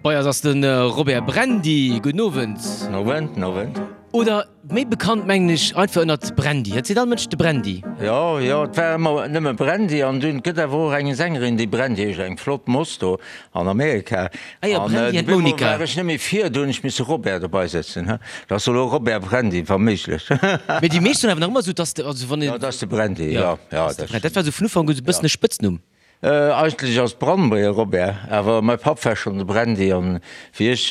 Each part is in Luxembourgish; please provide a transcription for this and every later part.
Bei eis ass de Robert Brandy. Gudden Owend. Owend, Owend. Oder méi bekannt mengen ech einfach ënnert Brandy. Et seet all Mënsch de Brandy. Jo, jo, et war ëmmer nëmme Brandy an dunn gëtt awer och eng Sängerin déi Brandy heescht, eng flott Moss do an Amerika. Ah jo, Brandy an d'Monica. An war ech net méi vir, do hunn ech misse Robert dobei setzen, he. Dat ass elo Robert Brandy, wa méiglech. Mee déi meescht soen awer nach ëmmer esou, dass de, also wann een. Jo, dat ass de Brandy, jo, jo. Dat war esou vun Ufank un esou e bëssen e Spëtznumm. Eigentlech ass Brandmeier Robert, awer mäi Papp war schonn de Brandy an wéi ech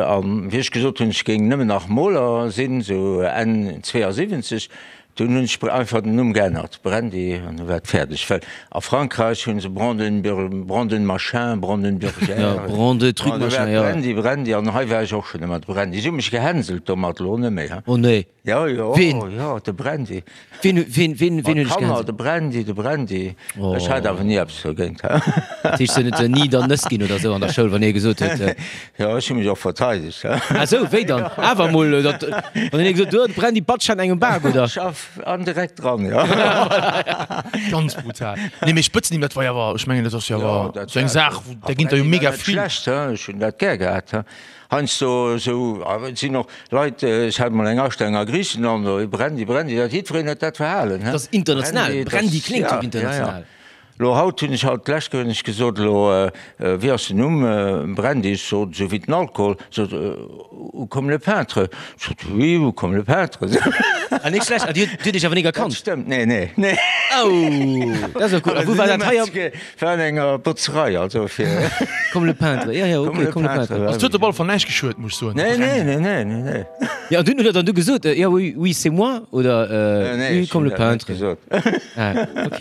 an wéi ech gesot hunn, ech géing nëmmen nach Moler sinn, sou Enn 72, dunn hunn ech einfach den Numm geännert, Brandy, an du war et fäerdeg. Well a Frankräich hunn se Brandenburg, Branden machin, Brandenburger, Ja, Brande truc machin, jo. Brandy, Brandy, an hei war ech och schonn ëmmer de Brandy. Si hu mech gehänselt domat, elo net méi, he. Oh nee. Jo, jo, Ween? jo, de Brandy. Ween, ween, ween, ween huet dech Kanner, gehänselt? de Brandy, de Brandy. Ech hat awer ni eppes dogéint. Dat heescht, se huet net ni der Nëss ginn oder sou an der Schoul, wann ee gesot huet. Jo, ech hu mech och verteidegt. Ah sou, wéi dann? Awer emol, datt, wann een gesot huet, de Brandy batscht an engem Bak, oder? Schaff an direkt dran, jo. Ganz brutal. Nee, mee Spëtznimm, dat war jo awer, ech mengen, dat ass jo awer sou eng Saach, wou, där ginn der jo mega vill. Schlecht, ech hunn dat gär gehat. Heiansdo esou, awer et sinn och Leit, ech hat mol eng Astellung a Griichenland, oh Brandy, Brandy, dat jiddwereen huet dat verhalen, he. Dat ass international, Brandy kléngt jo international. Lo haut hunn ech haut d'lescht Kéier hunn ech gesot, elo wéi ass den Numm, Brandy, ech sot esou wéi den Alkohol, sot ou comme le peintre, ech sot oui, ou comme le peintre. Ah net schlecht, ah Dir hutt Iech awer nik erkannt? Dat stëmmt, nee, nee, nee. Oh, dat ass jo cool. A wou war dat hei am. War an enger Botzerei, also fir. Comme le peintre, ja, ja, ok, comme le peintre. Also et huet op alle Fall näischt geschuet, muss ech soen. Nee, nee, nee, nee, nee, nee. Ja, an dunn huet er dann du gesot, ja, oui, oui, c'est moi, oder Nee, oui, comme le peintre. gesot. Ah, ok.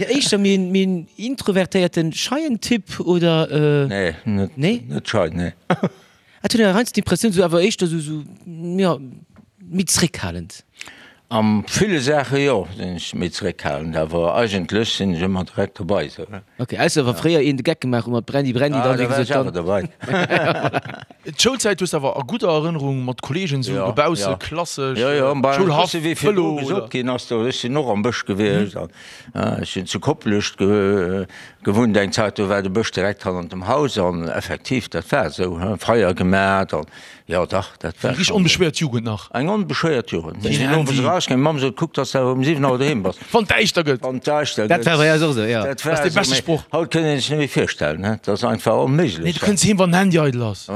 Ja, éischter méi en, méi en introvertéierten, scheien Typ, oder? Nee, net, Nee? net schei, nee. Et huet een heiansdo d'Impressioun, sou awer éischter sou, sou, jo, méi zréckhalend. A ville Saache jo, sinn ech méi zréckhalend, awer eigentlech sinn ech ëmmer direkt dobei sou. Ok, ausser wa fréier een de Geck gemaach huet mat Brandy, Brandy, Ah, dann da wéi war ech gesot, awer dann. dobei. D'Schoulzäit hues de awer a gudder Erënnerung mat Kolleegen sou Jo, dobausse, jo. klassesch, Jo, jo, bei Schoulhaff, bësse wéi virdru Vëlo oder? gesot ginn ass do, ech sinn och am Bësch gewiescht an ech sinn zu Koplescht gewunnt eng Zäit, do war de Bësch direkt hannert dem Haus an effektiv, dat war esou, Feier gemat an jo dach, dat war Eng richteg schonn. onbeschwéiert Jugend nach. Eng onbeschwéiert Jugend. Mir Keen sinn owes Handy. erausgaangen, meng Mamm sot, kuck, dass de awer um 7 Auer doheem bass. Wann et däischter gëtt. Wann et däischter Dat gëtt. war bei eis och esou, jo. Dat Dat war ass dee esou, beschte mee Sproch. haut kënnt een sech net méi virstellen, he, dat ass einfach onméiglech. Nee, du kënns heem, wann den Handy eidel ass.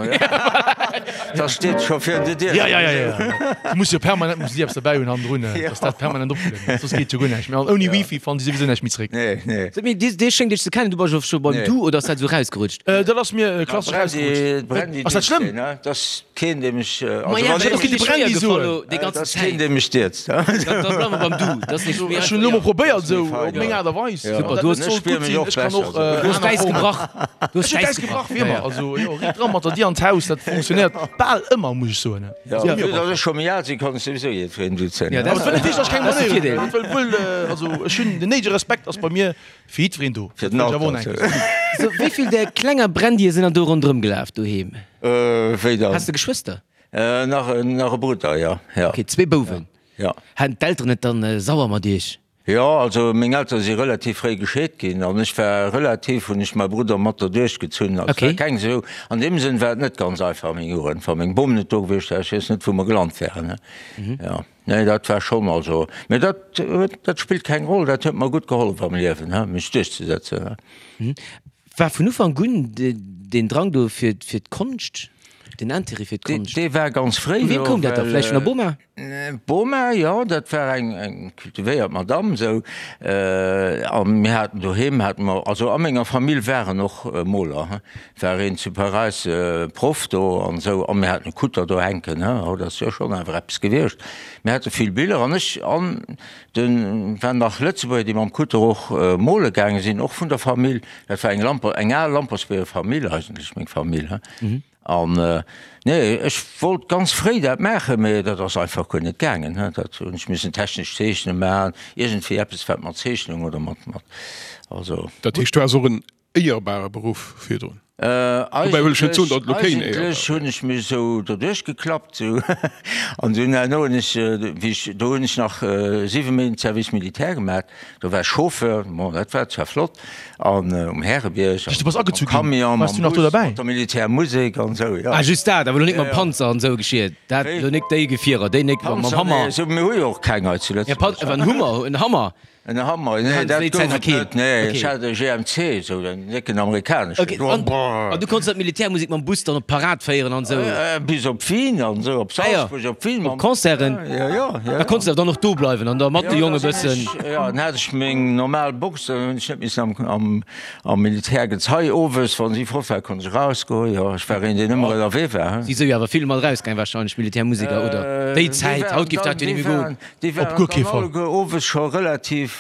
Da steet scho virun der Dier. Ja, ja, ja, ja. Du muss jo permanent muss déi eppes derbäi hunn hannendrun, dass dat permanent opgelueden ass, soss geet jo guer näischt méi. An ouni Wifi fannen déi souwisou näischt méi zeréck. Nee, nee. Sot mir, dee schéngt iech ze kennen, du bass jo scho beim Du oder ass dat esou rausgerutscht? Dat ass mir klassesch rausgerutscht. Ass dat schlëmm? Dat ass keen, dee mech, also Ma ja, wann dat ass ee de mech, Brandy soen, déi dat ganzen ass keen, Zäit. dee mech dierzt. Da bleiwe mer beim Du, dat ass nicht méi Ech hunn elo mol einfach. probéiert esou fein, op meng ja. Aart a Weis. Ja. Super, Du du hues- hues sollt Ech spier gutt mech sinn. och Ech kann besser och esou. Du hues aner d'Äis Formen. gebrach. Du hues Ech hunn d'Äis d'Äis gebrach, gebrach. wéi Ja, ëmmer. ja. Also jo, riit dran mat der Dier an d'Haus, dat funktionéiert bal ëmmer, muss ech soen. Ja, Also, vu datt ech scho méi al sinn, kann ech souwisou jiddwereen duzen. Ja, dat Aber et wëll net heeschen, datt ech keng Dat ass de Manéier hunn. Virdeel. Dat wëll wuel, also ech hunn den néidege Respekt ass bei mir fir jiddwereen do. Fir Dat den wëll ech awer och Alter. nach eng Kéier soen. So, wéi vill där klenger Brandye sinn dann do ronderëm gelaf doheem? Wéi dann? Has de Geschwëster? Nach en, nach e Brudder, jo, jo. Ok, zwee Bouwen. Jo. Haten d'Elteren et dann sauer mat iech? Jo, also meng Eltere si relativ fréi gescheet ginn an ech war relativ, hunn ech mäi Brudder mat derduerch gezunn. Also Okay. war keng esou, an deem Sënn war et net ganz einfach meng Jugend. Wa meng Bom net do gewiescht wär, ech weess net wou mer gelant wären, ne. Jo, nee dat war schonn, also, mee dat huet, dat spillt keng Roll, dat huet mer gutt gehollef am Liewen, he, mech duerchzesetzen, he. War vun Ufank un deen Drang do fir fir d'Konscht, den Intérêt fir d'Konscht? Dee war ganz fréi Vu wiem do, koum dat da? well. Vläicht vun der Boma? D'Boma, jo, dat war eng eng kultivéiert Madamm esou. A mir haten doheem hate mer, also a menger Famill waren och Moler, he, war een zu Paräis Proff do an esou, a mir haten e Kutter do hänken, he, haut ass jo schonn awer eppes gewiescht. Mir hate vill Biller an ech an de waren nach Lëtzebuerger, déi mam Kutter och mole gaange sinn, och vun der Famill. Dat war eng Lamper, eng al Lampertsbierger Famill eigentlech, meng Famill, he. An nee, ech wollt ganz fréi dat maachen, mee dat ass einfach guer net gaangen. Dat hunn ech missen technesch Zeechne maachen, iergendwéi eppes wat mat Zeechnung oder mat, mat, also. Dat heescht, du has och en éierbare Beruff virdrun? Dobäi wëll ech net soen, datt et elo keen Éier war. Eigentlech hunn ech mech esou doduerch geklappt esou an dunn herno hunn ech, wéi ech, do hunn ech nach 7 Méint Service militaire gemaat, do war ech Chauffeur, bon dat war zwar flott an um Härebierg Du bass am agezu ginn, Camion, waars mam du nach do Bus, derbäi? mat der Militärmusek an esou, jo. Ah just dat, awer elo nik mam Panzer an esou geschiet, dat elo nik déi Gefierer, déi nik mam Panzer, Hammer. nee, esou, mir hu jo och keng hei zu Ja, Pan, Lëtzebuerg. awer en Hummer, en Hammer. En Hammer, nee, dat gouf et net, nee, ech hat e GMC, esou en décken amerikaneschen. Okay, an, an du konns dat Militärmusek mam Bus dann op d'Parad féieren an esou? Bis op Wien an esou, op Salzburg, op Wien. Op Concerten? Jo, jo, jo. Da konns de dann och do bleiwen an da mat de Jonge bëssen. Jo, dann hat ech meng normal Box, dann hunn ech net missen am, am, am Militärgezei owes, wann si fort war, konnt ech erausgoen, jo, ech war een, deen ëmmer ënnerwee war. Si sou jo awer vill mat erausgaang wahrscheinlech, Militärmuseker, oder? Déi Zäit, haut géif dat jo net méi goen. Déi Op waren guer kee dann Fall. alleguer owes scho relativ,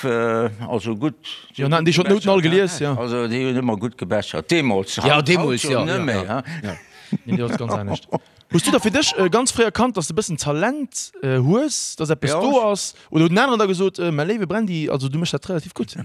also gutt. Jo, haten déi schonn d'Nouten all gelies, jo. Also déi hunn ëmmer gutt gebechert, deemools. Ja, deemools, jo. jo. Net méi, Ja, hein. Nee, dat ass ganz anescht. Hues du da fir dech ganz fréi erkannt, dass de bëssen Talent hues, dass eppes Jo. do ass? Oder huet en aneren da gesot, Mäi léiwe Brandy, also du méchs dat relativ gutt?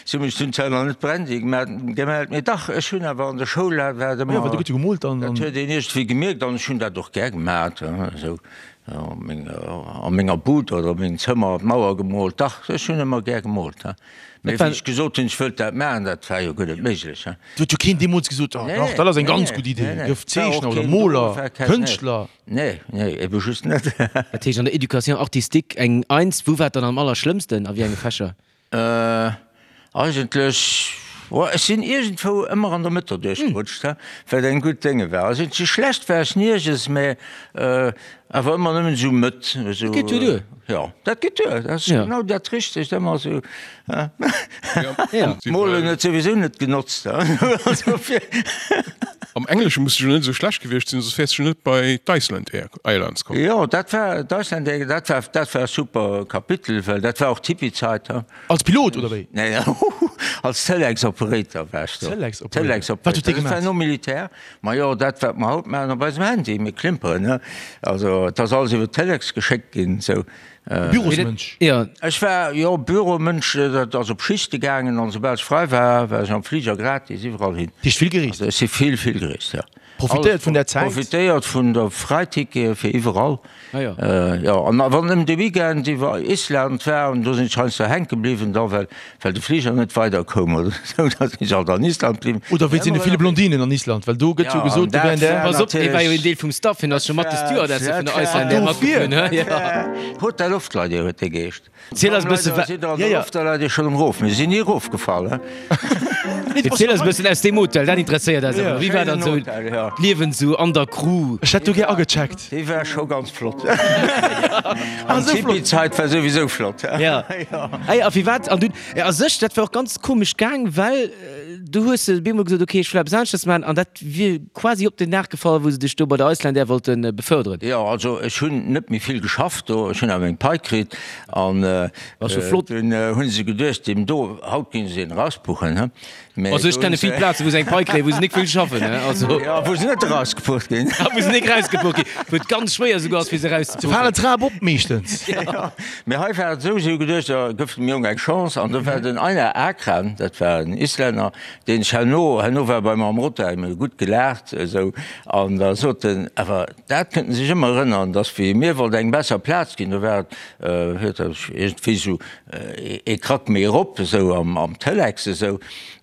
Si hu mech dunn zwar nach net Brandy gemellt, mee dach, ech hunn awer an der Schoul, war et Jo, ëmmer. well du gutt gemoolt an. Dat huet een iergendwéi gemierkt an ech hunn dat och gär gemat, esou. A menger Bud oder a mengem Zëmmer d'Mauer gemoolt. Dach, ech hunn ëmmer gär gemoolt. Mee wéi ech gesot hunn, ech wëllt dat maachen, dat war jo guer net méiglech. Et huet jo keen deemools gesot, oh dach, dat ass eng ganz gutt Idee, gëff Zeechner oder Moler, Kënschtler. Nee, nee, ebe just net. Dat heescht an der Éducation artistique eng Eins. Wou war et dann am allerschlëmmsten, a wéi enge Fächer? Eigentlech, oh, ech sinn iergendwou ëmmer an der Mëtt derduerch gerutscht, he, wat eng gutt Dénge war. Also sou schlecht war ech nierges, mä awer ëmmer nëmmen esou Mëtt, esou. Dat geet jo duer. Jo, dat geet duer, dat ass genau dat Richtegt, ëmmer esou, he. Ja. Molen huet souwisou net genotzt, he, also fir. Am Englesche muss de jo net esou schlecht gewiescht sinn, soss wäers de jo net bei d'Iceland Airlines komm. Jo, dat war d'Iceland Air, dat war, dat war e super Kapitel, well dat war och d'Hippie-Zait, he. Als Pilot, oder wéi? Nee, als Telex-Operator war ech do. Telex-Operator. Telex-Operator. Wat hutt Dir Dat war gemaach? nom Militär. Majo, dat wat mer haut maachen op eisem Handy, mir klimperen, he. Also, et ass alles iwwer Telex geschéckt ginn, esou. Bürosmënsch? Jo. Ech war, jo, Büromënsch, dat ass op Schichte gaangen an soubal ech frei war, war ech am Fliger gratis iwwerall hin. Heescht vill gereest? Also ech si vill, vill gereest, jo. Profitéiert vun där Zäit? Profitéiert vun der Fräitickete fir iwwerall. Ah jo. Jo, an wann nëmmen de Weekend iwwer Island war, an do sinn ech heiansdo hänke bliwwen da, well, well de Fliger net weider koum oder esou, da sinn ech alt an Island bliwwen. Oder wéinst deene ville Blondinen an Island, well do gëtt jo gesot, do wären där. Pass op, dee war jo een Deel vum Staff, hien ass scho mat de Stewardessen vun der Icelandair matgeflunn, hä? Jo. Hotel Loftleideer huet dee geheescht. Ziel eis e bësse wa. Sidd der an der Loftleideer schonn erop? Mir sinn ni erofgefall, hä? Ziel eis e bëssen aus deem Hotel, dat interesséiert eis awer. Wéi war dann esou d'Liewen esou an der Crew? Ech hätt do gär agecheckt. Déi war scho ganz flott. An d'Hippie-Zait war souwisou flott. Jo. Ey, a firwat? An dunn, a sech, dat war och ganz komesch gaang, well du hues op eemol gesot, ok, ech wëll eppes aneschters maachen, an dat wier quasi op den Dag gefall, wou se dech do bei der Icelandair wollte beförderen. Jo, also ech hunn net méi vill geschafft do, ech hunn awer meng Pai kritt an dunn hu se geduecht, deem do, haut ginn se een erauspuchen, he. Mä Also ech do kenne hunn se. vill Plazen, wou se eng Pai kréien, wou se nik vill schaffen, he, also. Jo, wou se net erausgepucht ginn. A wou se nik erausgepucht ginn, wou et ganz schwéier esouguer ass, fir se Se erauszepuchen. falen d'Trap op meeschtens. Jo, mä hei war et esou, se hu geduecht, da gëff dem Jong eng Chance an do war den Einar Akran, dat war en Islänner, deen ech herno, herno war bei mer am Rotterdam, mir hu gutt gelaacht esou, an da sot en, awer dat kënnt en sech ëmmer erënneren, dass wéi mir wollt eng besser Plaz ginn, do war et, huet er iergendwéi esou ee Krack méi erop esou am, am Telex esou,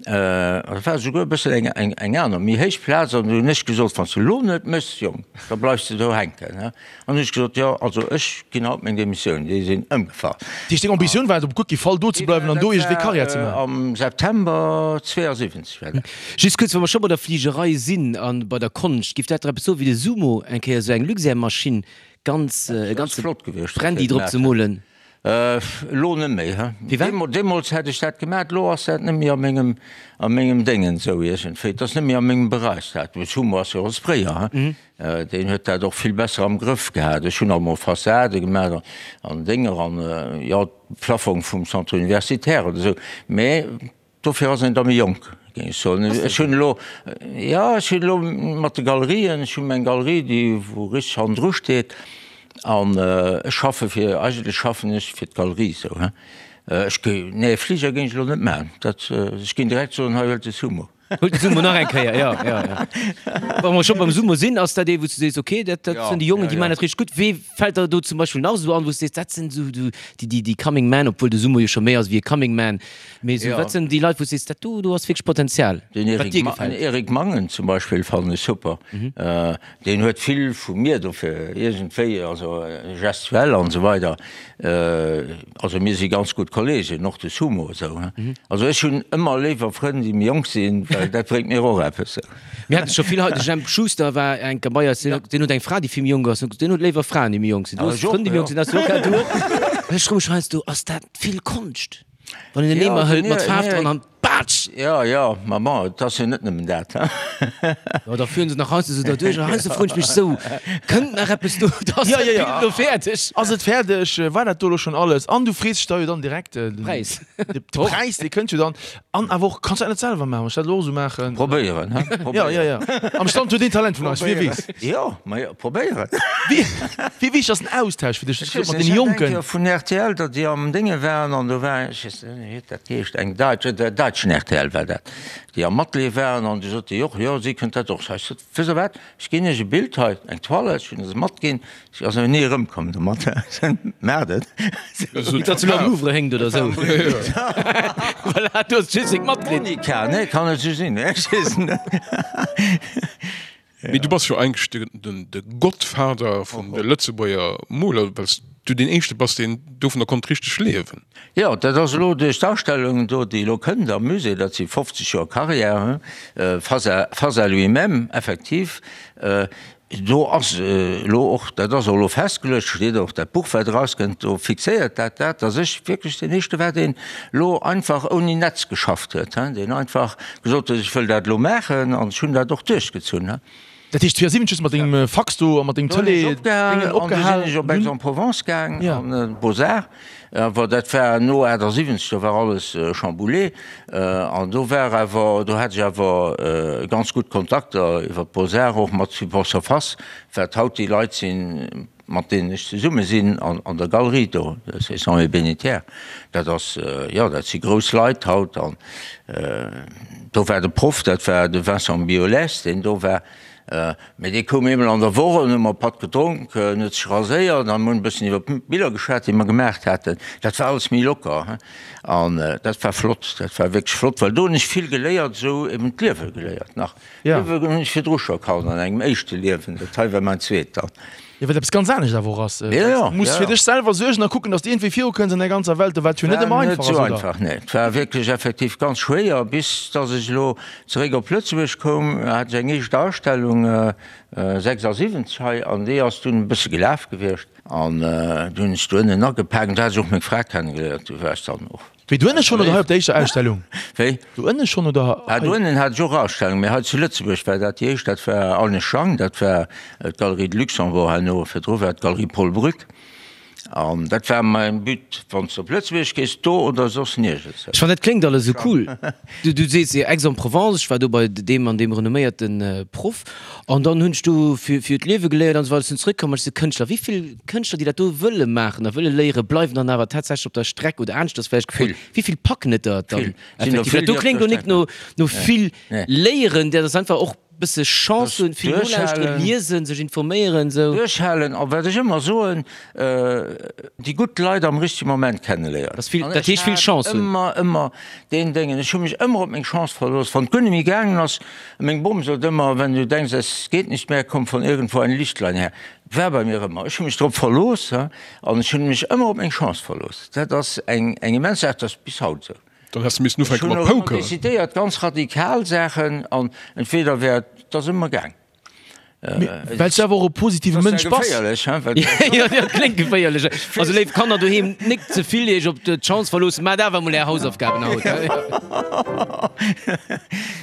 an dat war esouguer e bëssen eng, eng, eng aner méi héich Plaz, an du hunn ech gesot, wann s de elo net méchs, Jong, da bleifs de do hänken, he. An hunn ech gesot, jo, also ech ginn haut meng Demissioun. Déi sinn ëmgefall. Dat heescht, deng Ambitioun war et op guer kee Fall do ze bleiwen an do iergendwéi Karriär ze maachen? Am September 72 war dat. Just kuerz, wa mer scho bei der Fligerei sinn a bei der Konscht, giff dat der eppes soen, wéi de Sumo eng Kéier esou eng Luxair-Maschinn ganz, e ganze Brandy drop ze molen? Elo net méi, he? Firwat? Deemools hätt ech dat gemaat, elo ass dat net méi a mengem, a mengem Déngen esou iergendwéi. Et ass net méi a mengem Beräich dat. De Sumo ass jo e Sprayer, he? Deen huet dat och vill besser am Grëff gehat. Ech hunn alt mol Fassade gemaat an Dénger an, jo, Plafong vum Centre universitaire oder esou, mä Dofir ass een da méi jonk, géing ech soen. Ech hunn elo, jo, ech hunn elo mat de Galerien, ech hu meng Galerie, déi wou richteg hannendru steet an ech schaffe fir, eigentlech schaffen ech fir d'Galerie esou, hein. Ech géi, nee, Fliger géing ech elo net maachen, dat, ech géing direkt soen, hei huelt de Sumo. Huelt de Sumo nach eng Kéier, jo, jo, jo. Wa mer scho beim Sumo sinn, ass dat ee wou s du sees, okay, dat, dat sinn déi Jongen, déi maachen dat richteg gutt. Wee fält der do zum Beispill nach esou an, wou s du sees, dat sinn esou déi, déi, déi Coming Men, obwuel de Sumo jo scho méi ass wéi e Coming Man, mee esou, wat sinn déi Leit, wou s du sees, dat do, do ass wierklech Potenzial, Den wat Eric, dir Ma gefält? den Eric Mangen zum Beispill fannen ech super. Deen huet vill vu mir dofir iergendwéi, also gestuell an esou weider. Also mir si ganz gutt Kolleegen, och de Sumo esou. Also ech hunn ëmmer léiwer Frënn, déi méi jonk sinn, well dat bréngt mir och eppes. Mir hate scho vill hei, de Jemp Schuster war eng Kéier bei eis, deen huet eng Fra, déi vill méi jonk ass, deen huet léiwer Fraen, déi méi jonk sinn. Du hues Frënn, déi méi jonk sinn, has du och, du och. Ech froe mech heiansdo, ass dat vill Konscht, wann een en Eemer hëlt mat Faarf dran an Batsch! Jo, jo, ma bon, et ass jo net nëmmen dat, he? Jo, da führen se nach heiansdo esou derduerch an heiansdo froen ech mech esou, Kënnt nach eppes do? Ass dat Bild elo fäerdeg? Ass et fäerdeg? War dat do elo schonn alles? An du frees dech da jo dann direkt de Präis. De Präis, dee kënnt jo dann. An awer och, kanns du dat net selwer maachen? Wann ech dat elo och esou maachen. Probéieren, he? Jo, jo, jo. Am Stand huet een Talent vun eis, wie weess. Jo, ma jo, probéieren. Wéi, wéi wichteg ass den Austausch fir dech mat deene Jonken? Ech weess net, ech hat eng Kéier vun rtl, datt déi am Dénge waren an do war, ech weess net, wéi huet dat geheescht, eng Däitsch, der däitschen rtl war dat, déi am Atelier waren an du sot déi och, jo, si kënnt dat och. Ech sot, wësst Der wat, ech ginn Iech e Bild hei, eng Toile, ech hunn se matginn, si ass awer ni erëmkomm domat. Maacht et. Datt se elo am Louvre hénkt oder esou. Voilà, du hues just seng matkritt. Monika, nee, kann net esou sinn, ech weess et net. Mee du bass jo eigentlech de Godfather vun de Lëtzebuerger Moler, well s du deen éischte bass, deen dovunner konnt richteg liewen. Jo, dat ass elo duerch d'Ausstellung do, déi elo kënnt am Musée, dat si 50 Joer Carrière, face à, face à lui-même, effektiv. Do ass elo och, dat ass och elo festgeluecht, steet och dat Buch, wat erauskënnt, do fixéiert dat dat, datt ech wierklech deen éischte war, deen elo einfach ouni Netz geschafft huet, deen einfach gesot huet, ech wëll dat elo maachen an ech hunn dat och duerchgezunn. Dat heescht 72 hues de mat dengem Fax do a mat dengem Tëlee Déngen opgehal? Du sinn ech op Aix-en-Provence gaang an d'Beaux-Arts. Awer dat war no 78, do war alles chamboulé an do war awer, do hat ech awer ganz gutt Kontakter iwwer d'Beaux-Arts och mat Support Surface, wat haut déi Leit sinn, mat deenen ech zesumme sinn an der Galerie do, Saint Bénétière. Dat ass, jo, dat si grouss Leit haut an do war de Proff, dat war de Vincent Biolès, deen do war. Mee dee koum eemol an der Woch an hu mer e Patt gedronk, en huet sech raséiert an mir hunn e bëssen iwwer d'Biller geschwat, déi mer gemaach haten. Dat war alles méi locker an dat war flott, dat war wierklech flott, well do hunn ech vill geléiert, esou eben d'Liewe geléiert nach. D'Liewe hunn ech virdru scho kannt an engem éischte Liewen, dat hei war mäin zweet dann. Jo, wat eppes ganz anescht awer och ass. Du muss fir dech selwer suergen a kucken, datt s de iergendwéi virukënns an der ganzer Welt, wat jo net ëmmer einfach ass, oder? War net esou einfach, nee. Et war wierklech effektiv ganz schwéier, bis datt ech elo zeréck op Lëtzebuerg koum, hat ech eng éischt Ausstellung 76 hei an déi ass dunn e bësse gelaf gewiescht an du hunn ech do ënnen agepaakt an do hat ech och meng Fra kennegeléiert, du war ech dann och. Wéi, do ënne schonn oder hei op der éischter Ausstellung? Wéi? Do ënne schonn oder hei? Do ënnen hat ech och Ausstellung, mee hei zu Lëtzebuerg war dat déi éischt, dat war Agnes Schang, dat war d'Galerie de Luxembourg herno, virdru war et d'Galerie Paul Brück. An dat war mäin But, wann s de op Lëtzebuerg gees, do oder soss niergends. Ech fannen, dat kléngt alles esou cool. Du sees jo Aix-en-Provence, ech war do bei deem an deem renomméierte Proff an dann hunn ech do fir d'Liewe geléiert an esou weider. Ech sinn zeréckkomm an ech si Kënschtler. Wéi vill Kënschtler, déi dat do wëlle maachen a wëlle léieren, bleiwen dann awer tatsächlech op der Streck oder aneschters vläicht gefrot, wéi vill packen et der dann effektiv? Dat do kléngt lo nik no no vill léieren, dat ass einfach och bësse Chance hunn, vill nolauschteren, liesen, sech informéieren, esou. Duerchhalen a wat ech ëmmer soen, déi gutt Leit am richtege Moment kenneléieren. Dat ass vill, dat heescht vill Chance hunn. Ëmmer, ëmmer deen Déngen, ech hu mech ëmmer op meng Chance verlooss, wann et guer net méi gaangen ass, meng Bom sot ëmmer, wenn du denkst, es geht nicht mehr, kommt von irgendwo ein Lichtlein her. War bei mir ëmmer. Ech hu mech drop verlooss an ech hunn mech ëmmer op meng Chance verlooss. Dat ass eng eng immens Saach, dat ass bis haut esou. Dann häss de missen ufänke mat Ech hunn och ëmmer Poker. decidéiert, ganz radikal Saachen an entweder wär et, et ass ëmmer gaang. Mee well s du awer och e positive Mënsch bass. Geféierlech, hein, well. Jo, dat kléngt geféierlech. Also léif Kanner doheem, nik ze vill iech op d'Chance verloossen, maacht awer emol är Hausaufgaben haut.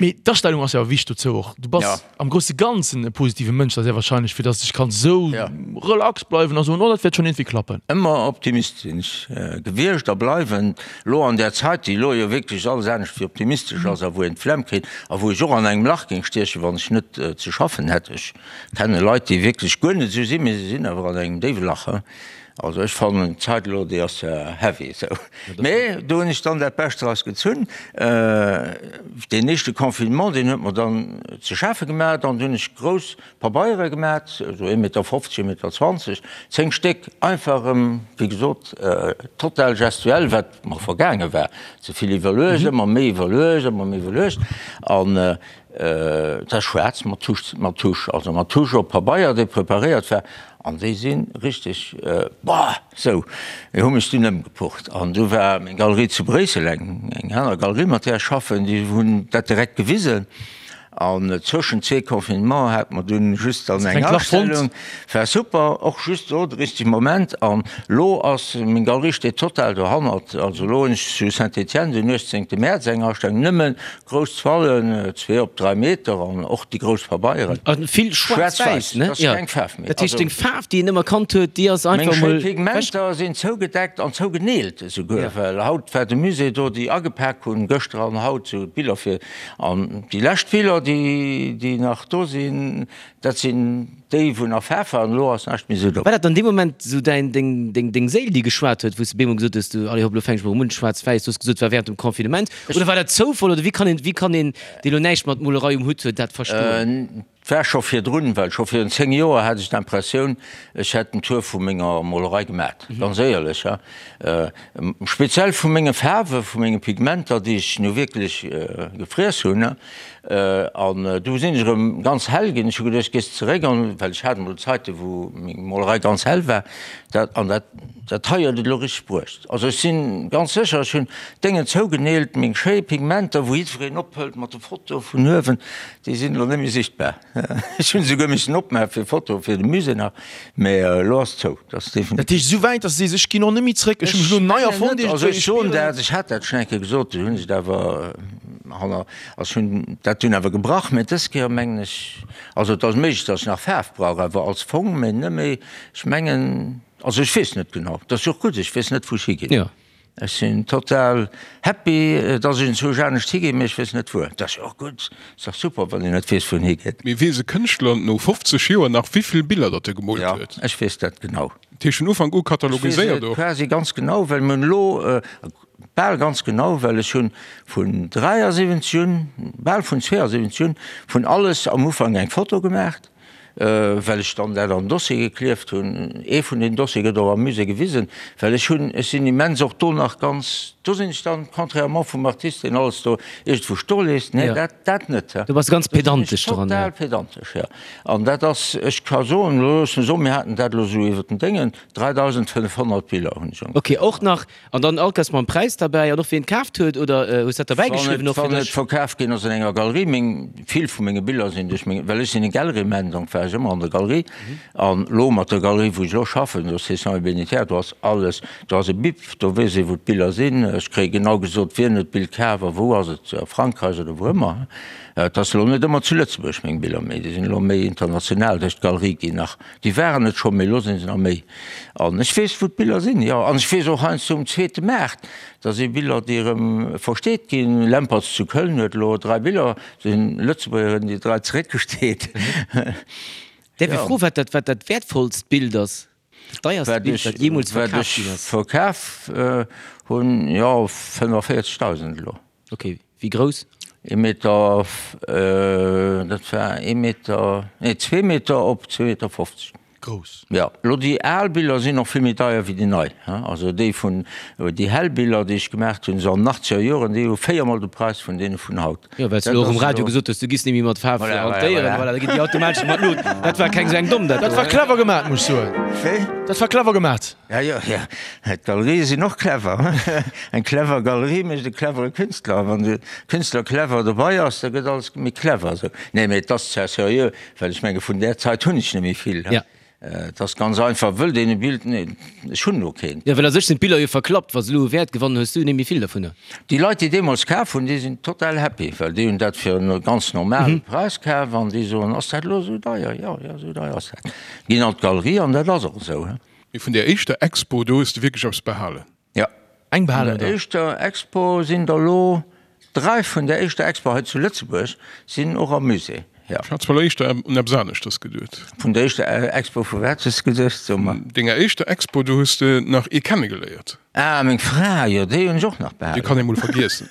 Mee d'Astellung ass jo awer wichteg dozou och. Du bass. Am grousse Ganzen e positive Mënsch, da sehr wahrscheinlech, fir dass ech kann sou relax bleiwen a soen, oh dat wäert schonn iergendwéi klappen. Ëmmer Optimist sinn ech gewiescht a bleiwen. Elo an där Zait, déi elo jo wierklech alles anescht wéi optimistesch ass a wou een d'Flemm kritt a wou ech och an engem Lach géing stiechen, wann ech net ze schaffen hätt. Ech kenne Leit, déi wierklech guer net esou sinn, mee se sinn awer an engem déiwe Lach. Also ech fannen d'Zait elo déi ass heavy esou. Mee do hunn ech dann dat Bescht draus gezunn. Deen éischte Confinement deen huet mer dann ze schafe gemat an du hunn ech grouss Pabeiere gemat, esou ee Meter 50, ee Meter 20, 10 Stéck, einfach erëm wéi gesot total gestuell, wat mer vergaange war, ze vill iwwerluecht, ëmmer méi iwwerluecht, ëmmer méi iwwerluecht an dat ass schwaarz mat Tusch, mat Tusch, also mat Tusch op Pabeier dee preparéiert war. An déi si richteg, boah, sou, mir hu mech dunn ëmgepucht. An du war meng Galerie zu Bréissel, eng eng aner Galerie, mat där ech schaffen, déi hunn dat direkt gewisen. An zwëschen zwee Confinement hate mer dunn just dann eng Astellung. War super, och just do de richtege Moment. An lo ass, meng Galerie steet total dohannert. Also lo hunn ech zu Saint-Étienne den 18 Mäerz eng Astellung, nëmmen Grouss Toilen, zwee op 3 Meter an och déi grouss Pabeieren. A vill schwaarz-wäiss, ne? Schwaarz-wäiss, dat ass keng Faarf méi. Dat heescht, deng Faarf, déi een ëmmer kannt huet, déi ass einfach mol. Meng schéi Pigmenter sinn zougedeckt an zougeneelt esouguer, well haut war de Musée do, déi agepak hunn, gëschter an haut, sou d'Biller fir. An déi lescht Biller, déi, déi nach do sinn, Dat sinn déi wou nach Faarf waren, elo ass näischt méi esou do. War dat an deem Moment esou däin, deng, deng, deng Séil déi geschwat huet, wou s de bemol gesot hues, du, allez hopp, elo fänk ech mol erëm un, schwaarz-wäiss, du hues gesot, et war während dem Confinement, oder war dat Zoufall, oder wéi kann een, wéi kann een, dee lo näischt mat Molerei um Hutt huet, dat verstoen? Et war scho virdrun, well scho virun 10 Joer hat ech d'Impressioun, ech hätt den Tour vu menger Molerei gemat, ganz éierlech, ha. Speziell vu menge Faarwe, vu menge Pigmenter, déi ech nu wierklech gefriess hunn. An du sinn ech erëm ganz hell ginn. Ech hu geduecht, gees zeréck an, well ech hat emol Zeiten, wou meng Molerei ganz hell war. Dat, an dat, dat hei huet et elo richteg bruecht. Also ech si ganz sécher, ech hunn d'Déngen zougeneelt, meng schéi Pigmenter, wou jiddwereen ophëlt mat de Fotoe vun uewen, déi sinn elo net méi sichtbar. Ech hunn esouguer missen opmaache fir Fotoe fir de Musée nach, mä elo ass zou. Dat ass definitiv. Dat heescht esou wäit, datt s de sees, ech ginn och net méi zréck, ech hu mech elo nei erfonnt iergendwéi. Also ech soen dat, ech hat dat schonn eng Kéier gesot, du hunn ech et awer hanner, also ech hunn dat dunn awer gebrach, mä dës Kéier mengen ech, also et ass méiglech, datt ech nach Faarf brauch, awer als Fong, mä net méi, ech mengen, also ech weess net genau, dat ass jo och gutt, ech weess net wou ech higinn. Ech sinn total happy, dass ech enzwousch anescht higinn, mee ech weess net wuer. Dat ass jo och gutt, ass dach super, wann een net weess, wou en higeet. Mee weess e Kënschtler no 50 Joer nach, wéivill Biller datt e gemoolt huet? Jo, ech weess dat genau. Dat heescht vun Ufank u katalogiséiert och? Ech weess et quasi ganz genau, well mir hunn elo, bal ganz genau, well ech hunn vun 73 un, bal vun 72 un, vun alles am Ufank eng Foto gemaacht. well ech dann dat an Dossier geklieft hunn. Ee vun den Dossiere gëtt och am Musée gewisen, well ech hunn, ech sinn immens och do nach ganz, do sinn ech dann, contrairement vum Artist, deen alles do iergendwou stoe léisst, nee, dat, dat net. Du bass ganz pedantesch dran. Total pedantesch, jo. An dat ass, ech ka soen, elo loosse mer soen, mir haten dat elo esou iwwer den Déngen, 3.500 Biller hunn ech ongeféier. Ok, och nach An dann all Kéiers mam Präis derbäi an och wien et kaaft huet oder hues dat derbäi geschriwwen och fir dech? Wann et verkaf ginn ass an enger Galerie, meng, vill vu menge Biller sinn duerch meng, well ech sinn e Galleryman, donc war ech ëmmer an der Galerie an lo mat der Galerie wou ech elo schaffen, do Sessions et Bénétières, do ass alles, do ass e Bip, do weess ee wou d'Biller sinn, ech kréie genau gesot wien huet d'Bild kaf a wou ass et, a Frankräich oder wou ëmmer. Et ass elo net ëmmer zu Lëtzebuerg meng Biller, mee déi sinn elo méi international duerch d'Galerie ginn nach. Déi waren et scho, mee elo sinn se nach méi. An ech weess, wou d'Biller sinn, jo. An ech weess och heiansdo um zweete Maart, da si Biller, déi erëm versteet ginn. Lempertz zu Köln huet elo 3 Biller, si Lëtzebuerger hunn déi 3 zeréckgesteet. Däerf ech froen, wat dat, wat dat wäertvollst Bild ass, dat deierst Bild, wat jeemools verkaf ginn ass? Wat ech verkaf hunn, jo, 45.000 elo. Ok, wéi grouss? Ee Meter, dat war ee Meter, nee zwee Meter op zwee Meter 50. Grouss. Jo, elo déi al Biller sinn och vill méi deier wéi déi nei. Also déi vun, déi hell Biller, déi ech gemaacht hunn, esou an den achtzeger Joren, déi hu véiermol de Präis vun deene vun haut. Jo, well s du elo och um Radio gesot hues, du giss net méi mat Faarf hantéieren, voilà, da ginn déi automatesch mat Lut. Dat war keng esou eng domm, dat do. Dat war clever gemat, muss ech soen. Wéi? Dat war clever gemat. Ja, jo, ja. D'Galerië sinn och clever. Eng clever Galerie mécht e clevere Künstler. A wann de Künstler clever dobei ass, da gëtt alles méi clever. Esou. Nee, mee et ass zwar seriö, well ech menge vun där Zait hunn ech net méi vill. Ja. Et ass ganz einfach, wëllt een e Bild, nee, ech hunn elo keent. Jo, well a sech sinn d'Biller jo verklappt. Wa se elo u Wäert gewannen, hues du net méi vill dervunner. Déi Leit, déi deemools kaf hunn, déi sinn total happy, well déi hunn dat fir en ganz normale Präis kaf an déi soen, Ass dat elo esou deier? Jo, jo, esou deier ass dat. Ginn an d'Galerie an dat ass och esou. Mee vun där éischter Expo, do hues de wierklech eppes behalen? Jo. Eng behalen, oder? Vun der éischter Expo sinn der elo 3 vun der éischter Expo hei zu Lëtzebuerg sinn och am Musée. Jo. Ech hat zwar elo éischter un eppes aneschters geduet. Vun der éischter Expo, vu wat hues de geduecht? So mer. Denger éischter Expo, do hues de nach ee kennegeléiert. Ah, meng Fra, jo, déi hunn ech och nach behalen. Déi kann ee mol vergiessen.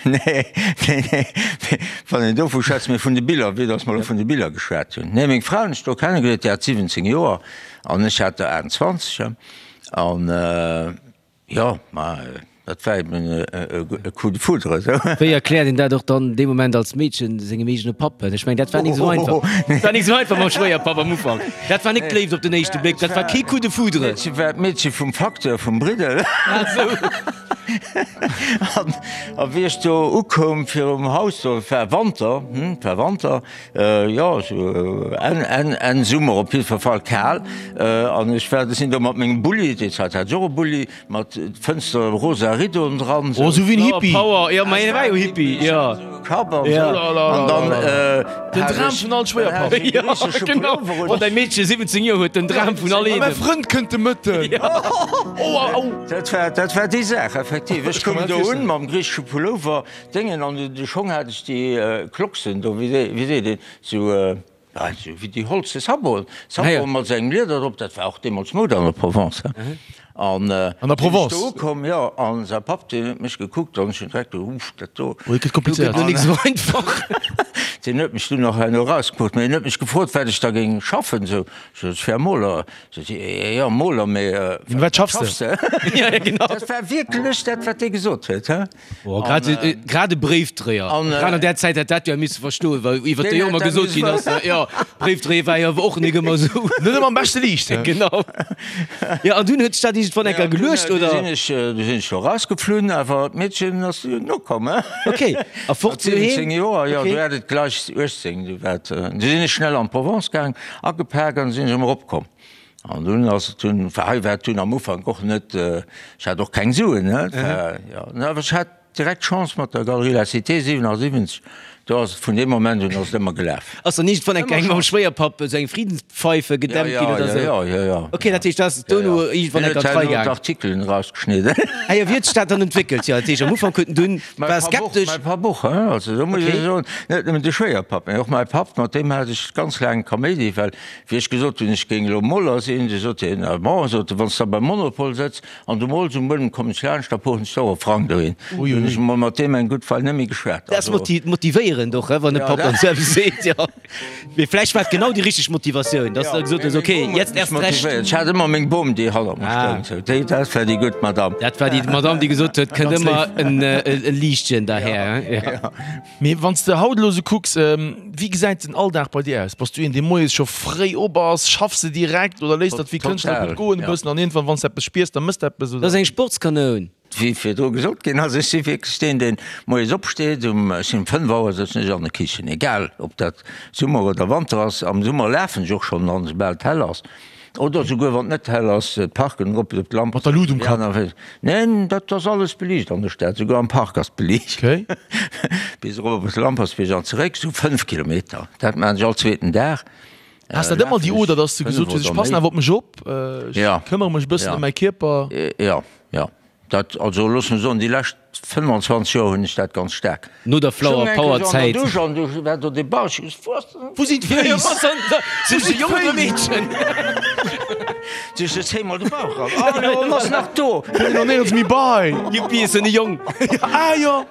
Nee, nee, nee, wann een dovu schwätzt, mee vun de Biller, vue dass mer elo vun de Biller geschwat hunn. Nee, meng Fra hunn ech do kennegeléiert, déi hat 17 Joer an ech hat der 28. An, jo, ma dat war eben e Coup de foudre, esou. Wéi erkläert een dat och dann dee Moment als Meedchen sengem eegene Papp? Ech mengen, dat war nik esou einfach. Dat war nik esou einfach mam Schwéierpapp am Ufank. Dat war nik d'Léift op den éischte Bléck, dat war kee Coup de foudre. D'Meedche war d'Meedche vum Facteur vum Briddel. Ah esou. An a wéi ech do ukoum virum Haus, do, et war Wanter, hm, et war Wanter, jo, esou Enn, Enn, Enn Summer, op jiddwer Fall kal. An ech war, sinn do mat mengem Bulli, déi Zäit hat ech och e Bulli, Mat Fënster, rosa Riddoen dran. Oh, sou wéi en Hippie. Power, jo, ma hien war jo Hippie, jo. Kapp an sou. An dann Den Dram vun all Schwéierpapp. Jo, genau. Wann däi Meedche 17 Joer huet, den Dram vun all Een. Mäi Frënd kënnt de Mëtten. Oh, au, au. Dat war, dat war déi Saach, effektiv. Ech koum do un mam griichesche Pullover, Déngen, an de Schong hat ech déi Clocksen do, wéi seet een, sou. Also wéi déi holze Saboten, Saboten mat sengem Lieder drop, dat war och deemools Mode an der Provence. An An der Provence? Sinn ech do ukomm, jo, an säi Papp, deen huet mech gekuckt an ech hunn direkt geduecht, uff, dat do. Oh, dat gëtt komplizéiert. Do gëtt lo nik esou einfach. Deen huet mech dunn och herno erausgefrot, mee en huet mech gefrot, wat ech da géing schaffen, esou. Ech sot, ech wär Moler. Sot hie, jo, Moler, mee wat schaffs de? Ja, ja, genau. Dat war wierklech dat, wat dee gesot huet, he. Oh, grad, äh, grad e Bréifdréier. An, Grad an där Zäit hätt dat jo misse verstoen, well iwwer déi Deen jo ëmmer hätt dat gesot ginn ass, misse jo, Bréifdréier war jo awer och nik ëmmer esou. Net ëmmer am beschte Liicht, he? Genau. Jo, an dunn huet sech dat iergendwann eng Kéier geluecht, Du oder? sinn ech, du sinn ech jo rausgeflunn, awer d'Meedchen ass nokomm, he? Ok, a fort Mat 17 doheem? Joer, jo, Ok. du hat et gleich 18, du wat, du sinn ech schnell an d'Provence gaang, agepak an sinn ech erëm eropkomm. An dunn ass et dunn, well hei war et dunn am Ufank och net, ech hat och keng Suen, ne, et war, jo, awer ech hat direkt Chance mat der Galerie La Cité 77, do ass et vun deem Moment un ass et ëmmer gelaf. Ass dann iergendwann eng Kéier mam Schwéierpapp esou eng Friedenspfeife gedämpt ginn oder esou? Jo, jo, jo. Ok, dat heescht, du ass dono iergendwann eng Kéier an d'Rei gaang. D'Artikelen erausgeschnidden. Ah jo, wéi huet sech dat dann entwéckelt? Jo, dat heescht, am Ufank huet en dunn, war skeptesch. Mäi Papp och, hein, also do muss ech soen, net nëmmen de Schwéierpapp, mee och mäi Papp, mat deem hat ech ganz laang Kaméidi, well Wéi ech gesot hunn, ech géing elo Moler sinn, du sot hien, ah bon, sot e, wann s de da beim Monopol sëtz an du mols um Buedem, kommen ech laanscht, da puchen ech der och e Frang dohin. Du hunn ech emol mat deem eng gutt Weil net méi geschwat. Dat ass motivéierend och, wann e Papp dann esou eppes seet, jo. Mee vläicht war et genau déi richteg Motivatioun, dass de da gesot hues, okay, jetzt erst recht. Ech hat ëmmer meng Bom, déi hannert mer stoung, sou, déi, dat war déi gutt Madamm. Dat war déi Madamm, déi gesot huet, kënnt ëmmer e Liichtchen derhär, jo. Mee wann s de haut elo sou kucks, wéi gesäit den Alldag bei dir aus? Bass du een, dee moies scho fréi op ass? Schaffs de direkt oder léiss dat wéi Kënschtler gutt goen e bëssen an iergendwann, wann s de eppes spiers, da mëss de eppes, Dat oder? ass eng Sportskanoun. Wéi virdru gesot ginn ass, ech si wierklech deen, deen moies opsteet, um, ech sinn um 5 Auer sëtzen ech an der Kichen, egal ob dat Summer oder Wanter ass. Am Summer lafen ech och schonn an, soubal et hell ass. Oder souguer wann et net hell ass, d'Parken erop, op d'Lamp. Mat der Lut um Kapp? Neen, dat ass alles beliicht an der Stad, souguer am Park ass beliicht. Okay. Bis erop op Lampertsbierg an zeréck, sou 5 Kilometer. Dat maachen ech all zweeten Dag. Has dat ëmmer déi Oder, dass de gesot hues, ech passen awer op mech op, ech këmmere mech e bëssen ëm mäi Kierper? Jo, jo. Dat, also looss mer soen, déi lescht 25 Joer hunn ech dat ganz staark. No der Flower Power Zäit. Ech stoung eng Kéier an der Dusch an du war do dee Bausch, ech gesot, Wou ass den. Wou sinn d'Féiss? Sinn ech e Jong oder e Meedchen? Du ech zéi mol de Bauch ran, oh jo, en ass nach do. Huet een och néierens méi bei. Juppi, ech sinn e Jong. Ah jo.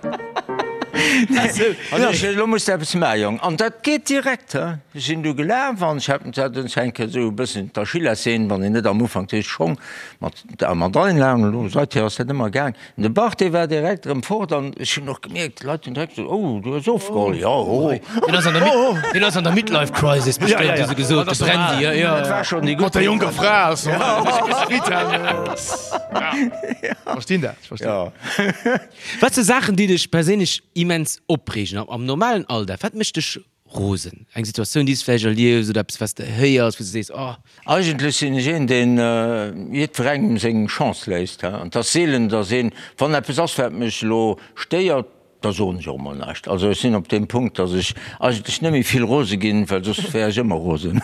An ech, elo muss de eppes maachen, Jong. An dat geet direkt, he. Ech sinn du gelaf an ech hat dat eng Kéier esou e bëssen d'Achillessehn, wann een net am Ufank d'Heescht Schong mat Der mat allen laangen elo, seither ass dat ëmmer gaang. De Bach, dee war direkt erëm fort an ech hunn och gemierkt, d'Leit hunn direkt gesot, oh, du hues ofgeholl. Jo, oh. Deen ass an der Mid, deen ass an der Midlife Crisis bestëmmt, hu se gesot, de Brandy, jo, jo. Dat war schonn déi gutt. Mat der jonker Fra ass normal. Verstinn dat, ech verstinn. Jo. Wat si Saachen, déi dech perséinlech immens opreegen am normalen Alldag? Wat mécht dech Rosen. Eng Situatioun, déi s de vläicht erliefs oder eppes, wat s de héiers, wou s de sees, Oh. Eigentlech sinn ech een, deen jiddwerengem seng Chance léisst. An et ass seelen, datt een, wann eppes ass, wat mech elo stéiert, da soen ech och emol näischt. Also ech sinn op deem Punkt, datt ech eigentlech net méi vill rose ginn, well soss wär ech ëmmer rosen.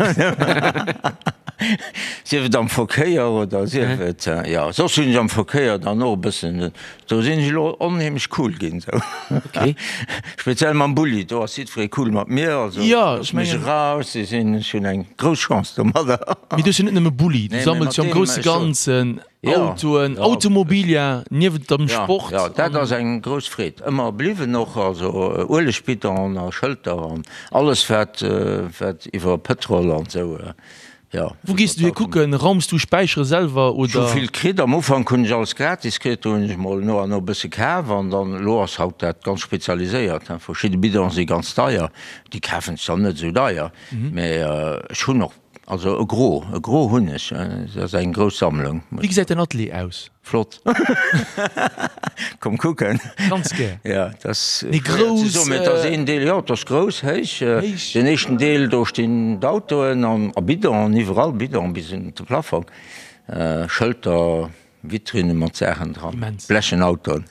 Sief et am Verkéier oder sief et, jo, soss hunn ech am Verkéier dann och e bëssen, do sinn ech elo onheemlech cool ginn esou. Okay. Speziell mam Bulli, do ass jiddweree cool mat mir, also Jo, ech loosse mech mengen. eraus, si sinn, ech hunn eng grouss Chance domadder. Mee du hues jo net nëmme Bulli, du Nee, mee sammels mat jo am deem, grousse ech soen. Ganzen Jo, Autoen, jo. Automobilia, niewent dem Ja, Sport ja, dat an. ass eng grouss Freed ëmmer bliwwen och, also Uelegbidon a Schëlter an alles wat, wat iwwer Pëtrol an esou, jo. Wou gees du hir kucken? Raums du Späichere selwer Ech hu oder? vill kritt, am Ufank hunn ech alles gratis kritt, do hunn ech mol no an no e bësse kaf an dann, elo ass haut dat ganz spezialiséiert, verschidde Bidonen si ganz deier, déi kafen ech dann net esou deier, mä ech hunn och Also e Gros, e Gros hunn ech. Dat ass eng grouss Sammlung. Wéi gesäit däin Atelier aus? Flott. Komm kucken. Ganz gär. Ja, dat ass Mee schwéier ze grouss? soen, mee et ass een Deel, jo, et ass grouss, héich. Héich. Den éischten Deel, do stinn d'Autoen an a Bidonen, iwwerall Bidonen bis un de Plafong, Schëlter, Vitrinne mat Saachen dran, Immens. blechen Autoen.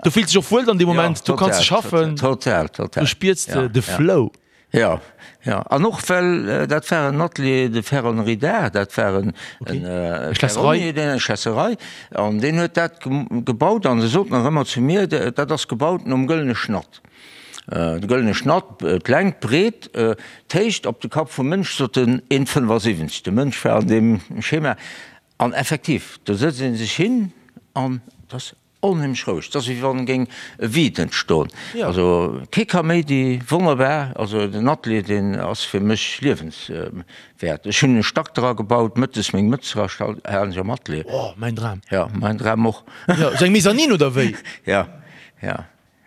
Do fills de dech och wuel dann dee Ja, Moment, do kanns total, de schaffen, total, total. do spiers de Ja, de ja. Flow. Jo, jo, an och well dat war en Atelier de ferronnerie d'art, dat war en Schlässerei, eng Schlässerei, an deen huet dat gebaut an e sot nach ëmmer zu mir, dat ass gebaut nom gëllene Schnatt. De gëllene Schnatt, d'Längt, d'Breet, d'Héicht op de Kapp vum Mënsch, sot en, 1,75. De Mënsch war an deem Schema an effektiv, do sëtzt ee sech hin an et ass Onheemlech roueg, et ass wéi wann géing e Vide entstoen. Also kee Kaméidi, wonnerbar. Also den Atelier deen ass fir mech liewenswäert. Ech hunn e Stack dra gebaut, mëttes meng Mëtz dra halen ech am Atelier. Oh, mäin Dram. Jo, mäin Dram och. Jo, sou eng Mezzanine oder wéi? Jo, jo,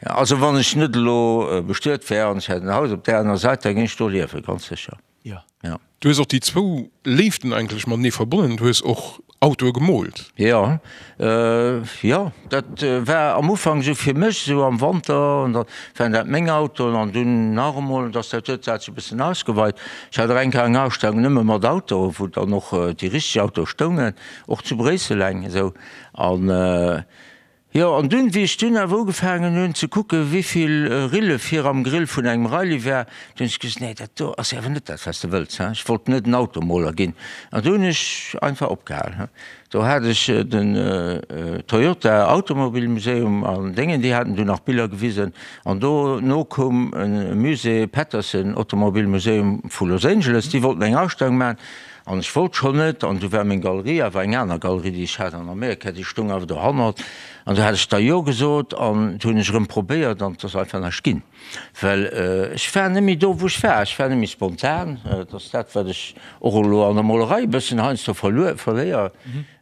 jo. Also wann ech net elo bestuet wär an ech hätt en Haus op där aner Säit, da géing ech do liewen, ganz sécher. Jo. Ja. Du hues och déi zwou Léiften eigentlech matenee verbonnen, du hues och Autoe gemoolt. Jo, jo, dat war am Ufank esou fir mech, esou am Wanter, an da waren dat meng Autoen an dunn nach emol, dass dat huet dat sech e bëssen ausgeweit. Ech hat och eng Kéier eng Ausstellung nëmme mat Autoen, wou dann och déi richteg Autoe stoungen, och zu Bréissel eng esou. An Jo, an dunn, wéi ech dunn awer ugefaangen hunn ze kucken, wéivill Rille vir am Grill vun engem Riley war, du hunn ech gesot, nee, dat do ass awer net dat, wat s de wëlls, hein. Ech wollt net en Automoler ginn. An du hunn ech einfach opgehal, hein. Do hat ech den Toyota Automobile Museum an Déngen, déi haten du nach Biller gewisen. An dono koum e Musée, Patterson Automobile Museum vu Los Angeles, déi wollten eng Ausstellung maachen. An ech wollt schonn net, an du war meng Galerie awer eng aner Galerie, déi ech hat an Amerika, déi stoung awer dohannert. An du hat ech da Jo gesot an du hunn ech erëm probéiert an et ass einfach näischt ginn. Well ech war net méi do, wou ech war. Ech war net méi spontan. Et ass dat, wat ech och elo an der Molerei e bëssen heiansdo verluer, verléier.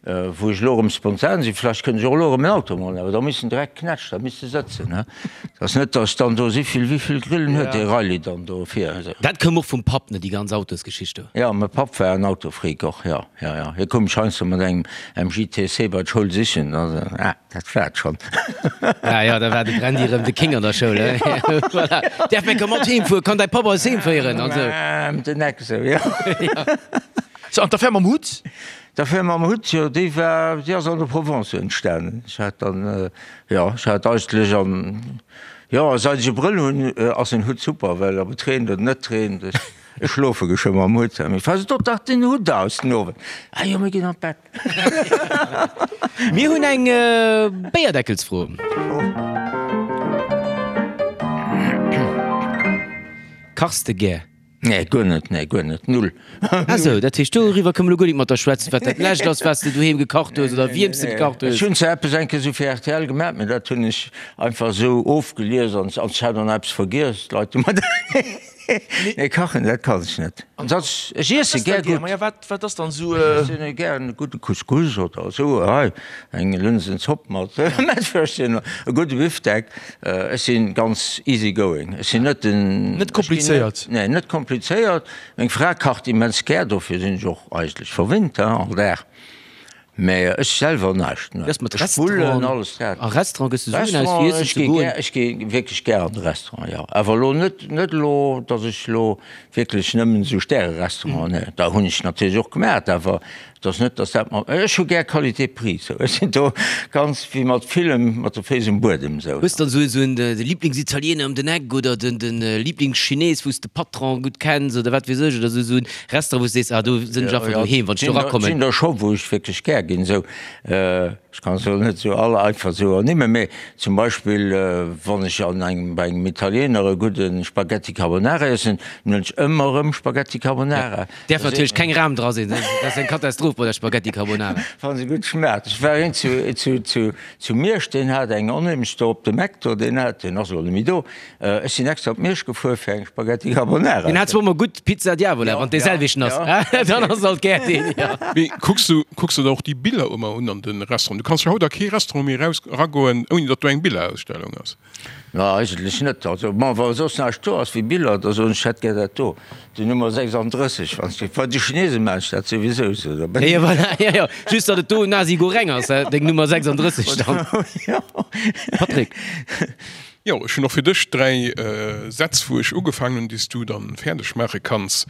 Wou ech elo erëm spontan sinn, vläicht kënnt ech och elo erëm en Auto molen, awer da misst en direkt knätsch, da misst e sëtzen, he. Et ass net, datt ech dann do si vill, wéi vill Grillen huet dee Riley dann do vir? Dat koum och vum Papp, ne, déi ganz Autosgeschicht do? Jo, mäi Papp war en Autofreak och, jo, jo, jo. Hie koum mech heiansdo mat engem MG TC bei d'Schoul sichen, da, ah, dat war et schonn. Ah jo, da war de Brandy erëm de King an der Schoul, he. Voilà. Däerf meng Kommand heem fueren? Kann däi Papp eis heem féieren? An esou. Ëm den Eck esou, jo. So, an d'Affär mam Hutt? D'Affär mam Hutt, jo, déi war, déi ass an der Provence entstanen. Ech hat dann, jo, ech hat eigentlech an, jo, seit ech e Brëll hunn, ass en Hutt super, well ob et reent oder net reent, ech, ech schlofe geschwë mam Hutt. Mee falls et dach den Hutt aus den Owend, ah jo, mir ginn an d'Bett. Mir hunn eng Béierdeckelsfro. Kachs de gär? Nee, guer net, nee, guer net, null. Ah sou, dat heescht doriwwer kënne mer elo guer nik mat der schwätzen, wat dat lescht ass, wat s de doheem gekacht hues oder wiem s de gekacht hues. Ech hunn zwar eppes eng Kéier esou fir rtl gemaach, mee dat hunn ech einfach esou ofgelies an ech hat och nach eppes vergiess. D'Leit hu mer dat. Nee, kachen, dat kann ech net. An soss, ech iesse gär gutt. Maja, wat, wat ass dann esou. Ech iessen gär e gudde Couscous oder esou, hei, eng Lënsenzopp mat Mettwürstchen, e gudde Bifdeck. Ech si ganz easy going. Ech sinn net den. Net komplizéiert? Nee, net komplizéiert. Meng Fra kacht immens gär, dofir sinn ech och eigentlech verwinnt, all Dag. Mä ech selwer näischt, ne. Wéi ass mat Ech spullen Restaurant? alles dat. A Restaurant gëss de Suen aus fir Restaurant, iessen ech ze gi goen? gär, ech gi wierklech gär an de Restaurant, jo. Awer elo net, net elo, datt ech elo wierklech nëmmen esou Stärerestauranten, ne. Da hunn ech natierlech och gemat, awer Et ass net, dass dat mer, ech hu gär Qualité-Prix, sou. Ech sinn do ganz wéi mat villem mat de Féiss um Buedem, sou. Hues dann esou en de Lieblingsitaliener ëm den Eck oder den den Lieblingschines, wou s de Patron gutt kenns oder wat weess ech oder esou en Restaurant, wou s sees, ah do sinn ech einfach doheem, wann ech do erakommen? Et sinn der scho, wou ech wierklech gär ginn, sou. Ech kann se elo net esou all einfach esou ernimmen, mee zum Beispill wann ech an engem, bei engem Italiener e gudde Spaghetti Carbonara iessen, dann huelen ech ëmmer erëm Spaghetti Carbonara. Däerf natierlech keng Ram dra sinn, dat ass eng Katastroph bei der Spaghetti Carbonara. Wann se gutt schmaacht. Ech war een zu, zu, zu, zu Miersch, deen hat eng onheemlech do op dem Eck do, deen hat, deen ass elo net méi do, ech sinn extra op Miersch gefuer fir eng Spaghetti Carbonara. Deen hat zwar ëmmer gutt Pizza Diavola, wann dee selwechten ass, dann ass alt gär deen, jo. Mee kucks du, kucks du der och déi Biller ëmmer un an de Restauranten? Du kanns jo haut a kee Restaurant méi eraus, eragoen, ouni datt do eng Billerausstellung ass. Na, eigentlech net. Also, bon, wa soss näischt do ass wéi Biller, da soen ech, ech hätt gär dat do, déi Nummer 36, wann s du, bei de Chinesen maachen ech dat souwisou esou, da Jo, voilà, jo, jo, just datt et do Nasi Goreng ass, deng Nummer 36 dann. Jo. Patrick. Jo, ech hunn och fir dech 3 Sätz, wou ech ugefaangen hunn, déi s du dann fäerdeg maache kanns.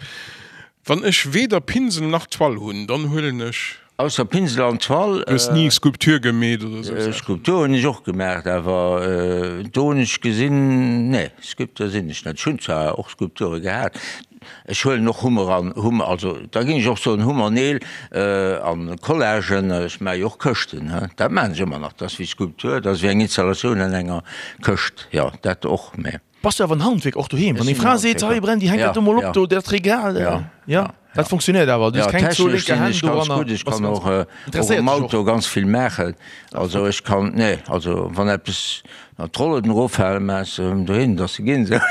Wann ech weder Pinsel nach Toile hunn, dann huelen ech. Ausser Pinsel an Toile. Du hues ni Skulptur gemeet oder sou Saachen? Skulptur hunn ech och gemaacht, awer do hunn ech gesinn, nee, Sculpteur sinn ech net. Ech hunn zwar och Skulpture gehat, ech huelen och Hummer an Hummer, also da géing ech och soen Hummer, Neel an Collagen, ech maache jo och Këschten, he, dat maachen ech ëmmer nach, dat ass wéi Skulptur, dat ass wéi eng Installatioun an enger Këscht, jo, dat och, mä. Bass du awer en Handwierker och doheem? Wann deng Fra seet, hei Brandy, hänk dat do mol op do, dat Regal, jo, dat funktionéiert awer, du hues keng zwou lénker Hänn doranner. Gutt, ech kann och um Auto ganz vill maachen, also ech kann, nee, also wann eppes d'Rollen eroffalen, maache ech se erëm dohin, dass se ginn. Dat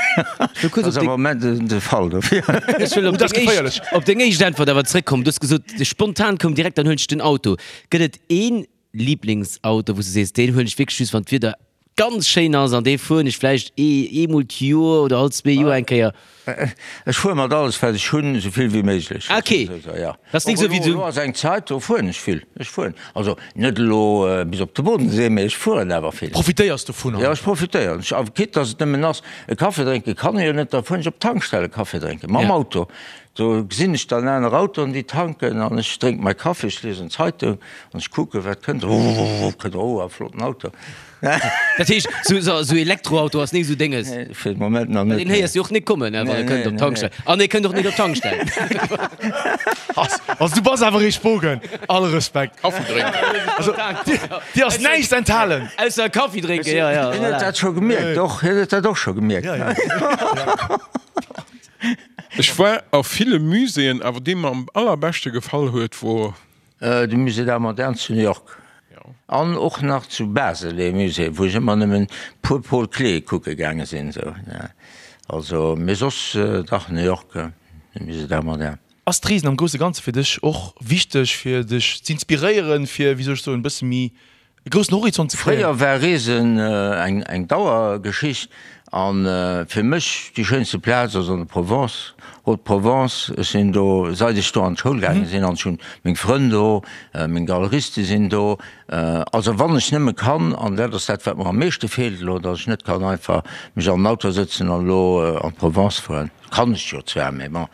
ass am Moment de Fall dofir. Ech wëll op deng éischt, op deng éischt Äntwert awer zréckkommen. Du hues gesot, spontan koum direkt, dann huelen ech den Auto. Gëtt et een Lieblingsauto, wou s du sees, deen huelen ech wierklech just, wann d'Wieder ganz schéin ass an dee fueren ech vläicht eemol d'Joer oder all zwee Joer eng Kéier? Ech fuere mat alles, wat ech hunn, esou vill wéi méiglech. Ah, ok. Ja. Dat ass nik esou wéi du. Elo ass eng Zäit, do fueren ech vill. Ech fueren, also net elo bis op de Bodensee, mee ech fueren awer vill. Profitéiers dovunner? Jo, ech profitéieren. Ech, quitte dass et nëmmen ass, e Café drénke kann ech jo net, da fueren ech op d'Tankstell e Café drénken, mam Auto. Do gesinn ech dann aner Autoen, déi tanken an ech drénk mäi Kaffi, ech liesen d'Zeitung an ech kucken, wat kënnt. Ruuuuuuh, kënnt, oh, e flotten Auto. Dat heescht, sou, sou Elektroauto ass nik sou Dénges? Nee, fir de Moment nach net. Deen héiers de och nik kommen, wann e kënnt op d'Tankstell. An e kënnt och nik op d'Tankstell. Also du bass awer ee Spogen, all Respekt. Kaffi drénken. Also dir ass näischt enthalen. Ausser Kaffi drénken, jo, jo. Hien huet dat scho gemierkt, och, hien huet dat och scho gemierkt. Jo, jo. Ech war a ville Muséeën, awer dee mer am allerbeschte gefall huet wor. De Musée d'Art Moderne zu New York an och nach zu Basel ee Musée, wou ech ëmmer nëmmen puer Paul Klee kucke gaange sinn esou. Also, mee soss dach New York, de Musée d'Art Moderne. Ass d'Reesen am grousse Ganze fir dech och wichteg fir dech z'inspiréieren, fir, wéi soll ech soen, e bësse méi E groussen Horizont ze kréien. Fréier war Reesen eng Dauergeschicht an fir mech déi schéinste Plaz ass an der Provence, Haute-Provence. Ech sinn do seit ech do an d'Schoul gaange sinn an ech hunn meng Frënn do, meng Galeriste sinn do. Also wann ech nëmme kann, an dat ass dat wat mer am meeschte feelt elo, datt ech net kann einfach mech an den Auto sëtzen an elo an d'Provence fueren. Kann ech jo zwar, mee bon.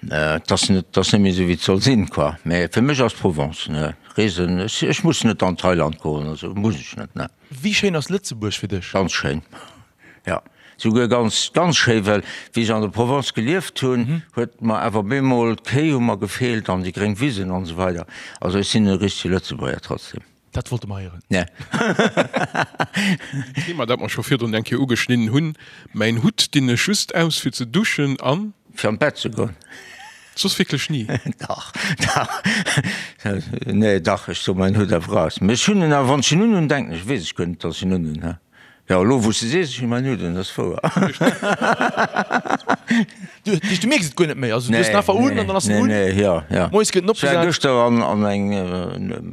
Et ass net, et ass net méi esou wéi et soll sinn, quoi. Mä fir mech ass Provence, ne, Reesen, ech, ech muss net an Thailand goen, also muss ech net, ne. Wéi schéin ass Lëtzebuerg fir dech? Ganz schéin, jo, souguer ganz, ganz schéi, well wéi ech an der Provence gelieft hunn, huet mer awer bemol d'Kéi hu mer gefeelt an déi gréng Wisen an esou weider. Also ech sinn e richtege Lëtzebuerger trotzdem. Dat wollte mer héieren. Ne. Thema, dat mer scho virdrun eng Kéier ugeschnidden hunn, Mäin Hutt dinn ech just aus fir ze duschen an. Fir an d'Bett ze goen. Soss wierklech ni? Dach, dach. Nee, dach, ech soe mäin Hutt awer aus. Mee ech hunn en awer, wann ech en unhunn, denken ech, weess ech guer net, datt ech en unhunn, he. Jo, elo wou s de sees, ech hunn mäin Hutt un, dat ass wouer. Du, du mierks et guer net méi, also du hues en einfach un an dann ass en un. Nee, nee, jo, jo. Moies gëtt en Ech war opgesat. gëschter an, an eng e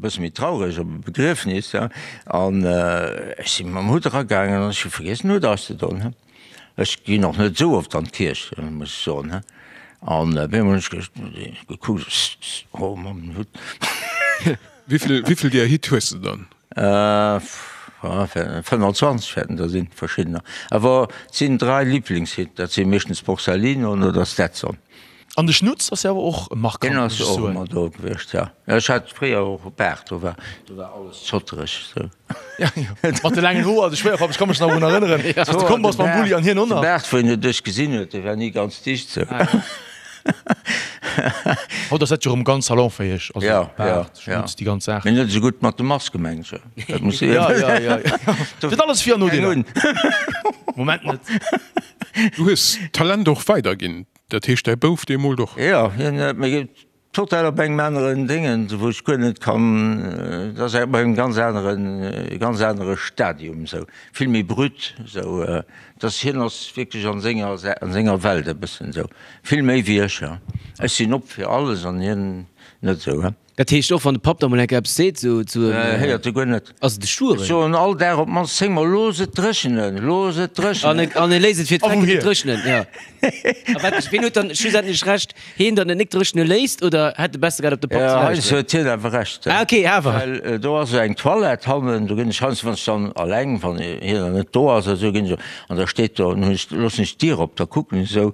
bësse méi traureg op e Begriefnis, ja, an ech si mam Hutt eragaangen an ech hu vergiess den Hutt auszedon, he. Ech ginn och net esou oft an d'Kierch, muss ech soen, he. An op eemol hunn ech gekuckt, oh, mam Hutt. Wéivill, wéivill deeër Hit hues de dann? 25 wäerten der sinn, verschiddener. Awer et sinn 3 Liblingshit, dat si meeschtens Borsalino oder Stetson. An de Schnutz ass jo awer och markant, Deen ass jo och ëmmer do gewiescht, jo. Ech hat fréier och e Baart, do war, do war alles zottereg esou. Ja, jo. Mat de laangen Hoer, de Schwéierpapp, ech ka mech nach drun erënneren, wéi s de komm bass mam Bulli an hien och nach. De Baart, wou een et duerch gesinn huet, dee war ni ganz dicht esou. Haut ass dat jo erëm ganz salonfäeg, also Ja, ja, Baart, ja. Schnutz, déi ganz Saach. Mee net esou gutt mat de Maske, mengen ech. Dat muss Ja, ja, ja, ja. Et huet alles Vir an Nodeeler. Moment net. Du hues d'Talent och weiderginn, dat heescht däi Bouf dee moolt och? Jo, hien huet mir total op engem aneren Déngen, wou ech guer net kann, dat ass op engem ganz aneren, ganz anere Stadium esou, vill méi brut esou, dass hien ass wierklech an senger, an senger Welt e bëssen esou, vill méi wéi ech. Ech sinn op fir alles an hien net esou. Dat heescht och wann de Papp da mol eng Kéier eppes seet sou zu em. Héiert e guer net. Ass et e Stueren? Ech soen all Dag op d'mannst 10 mol, Looss et dréchenen, looss et dréchenen. An e léisst et fir d'Drecken net dréchnen, jo. A wat, ween huet dann schlussendlech Recht? Heen, datt et net dréchne léisst, oder hätt e besser gehat op de Papp ze lauschteren? Heiansdo huet hien awer Recht. Ah ok, awer. Well do ass esou eng Toilette hannen, do ginn ech heiansdo, wann ech dann alleng, wann hien dann net do ass oder esou, ginn ech an da steet do, dann hunn ech, loossen ech d'Dier op, da kucken ech esou,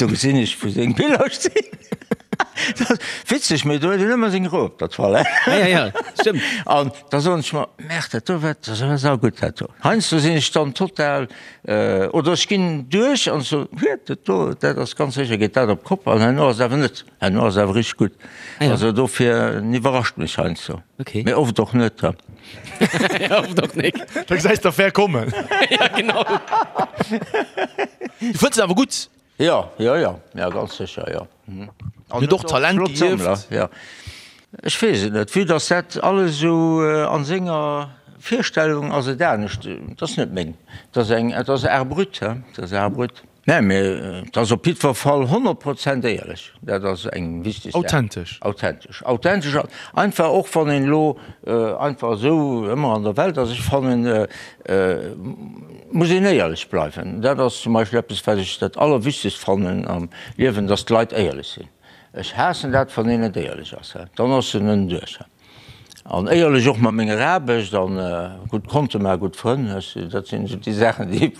do gesinn ech wou seng Biller stinn. Witzeg, mee do huet een ëmmer seng Rou op der Toilette. Ja, ja, ja, stëmmt. An da soen ech mer, Merde, dat do war, dat war saugutt, dat do. Heiansdo sinn ech dann total, oder ech ginn duerch an soen, Huet, dat do, dat ass ganz sécher, geet dat op d'Kopp. An herno ass et awer net, herno ass et awer richteg gutt. Ah ja. Also dofir, en iwwerrascht mech heiansdo. Okay. Mee oft och net, ha. Ja, oft och nik. Da gesäis d'Affär kommen. Ja, genau. Du fënns en awer gutt? Jo, jo, jo, jo, ganz sécher, jo. An huet och Talent geierft. Jo, ech weess et net, vue dass dat alles esou a senger Virstellung ass et anescht, et ass net meng, et ass eng, et ass Art brut, he, et ass Art brut. Mä mir, et ass op jiddwer Fall 100 Prozent éierlech, dat ass eng wichteg Saach. Authentesch. Authentesch, authentesch an einfach och wann een elo einfach esou ëmmer an der Welt ass, ech fannen, Muss een éierlech bleiwen. Dat ass zum Beispill eppes, wat ech dat Allerwichtegst fannen am Liewen, dass d'Leit éierlech sinn. Ech haassen dat, wann een net éierlech ass. Dann ass en ënneduerch. An éierlech och mat menger Aarbecht an gutt Konte maachen, gutt Frënn, dat sinn esou déi Saachen, déi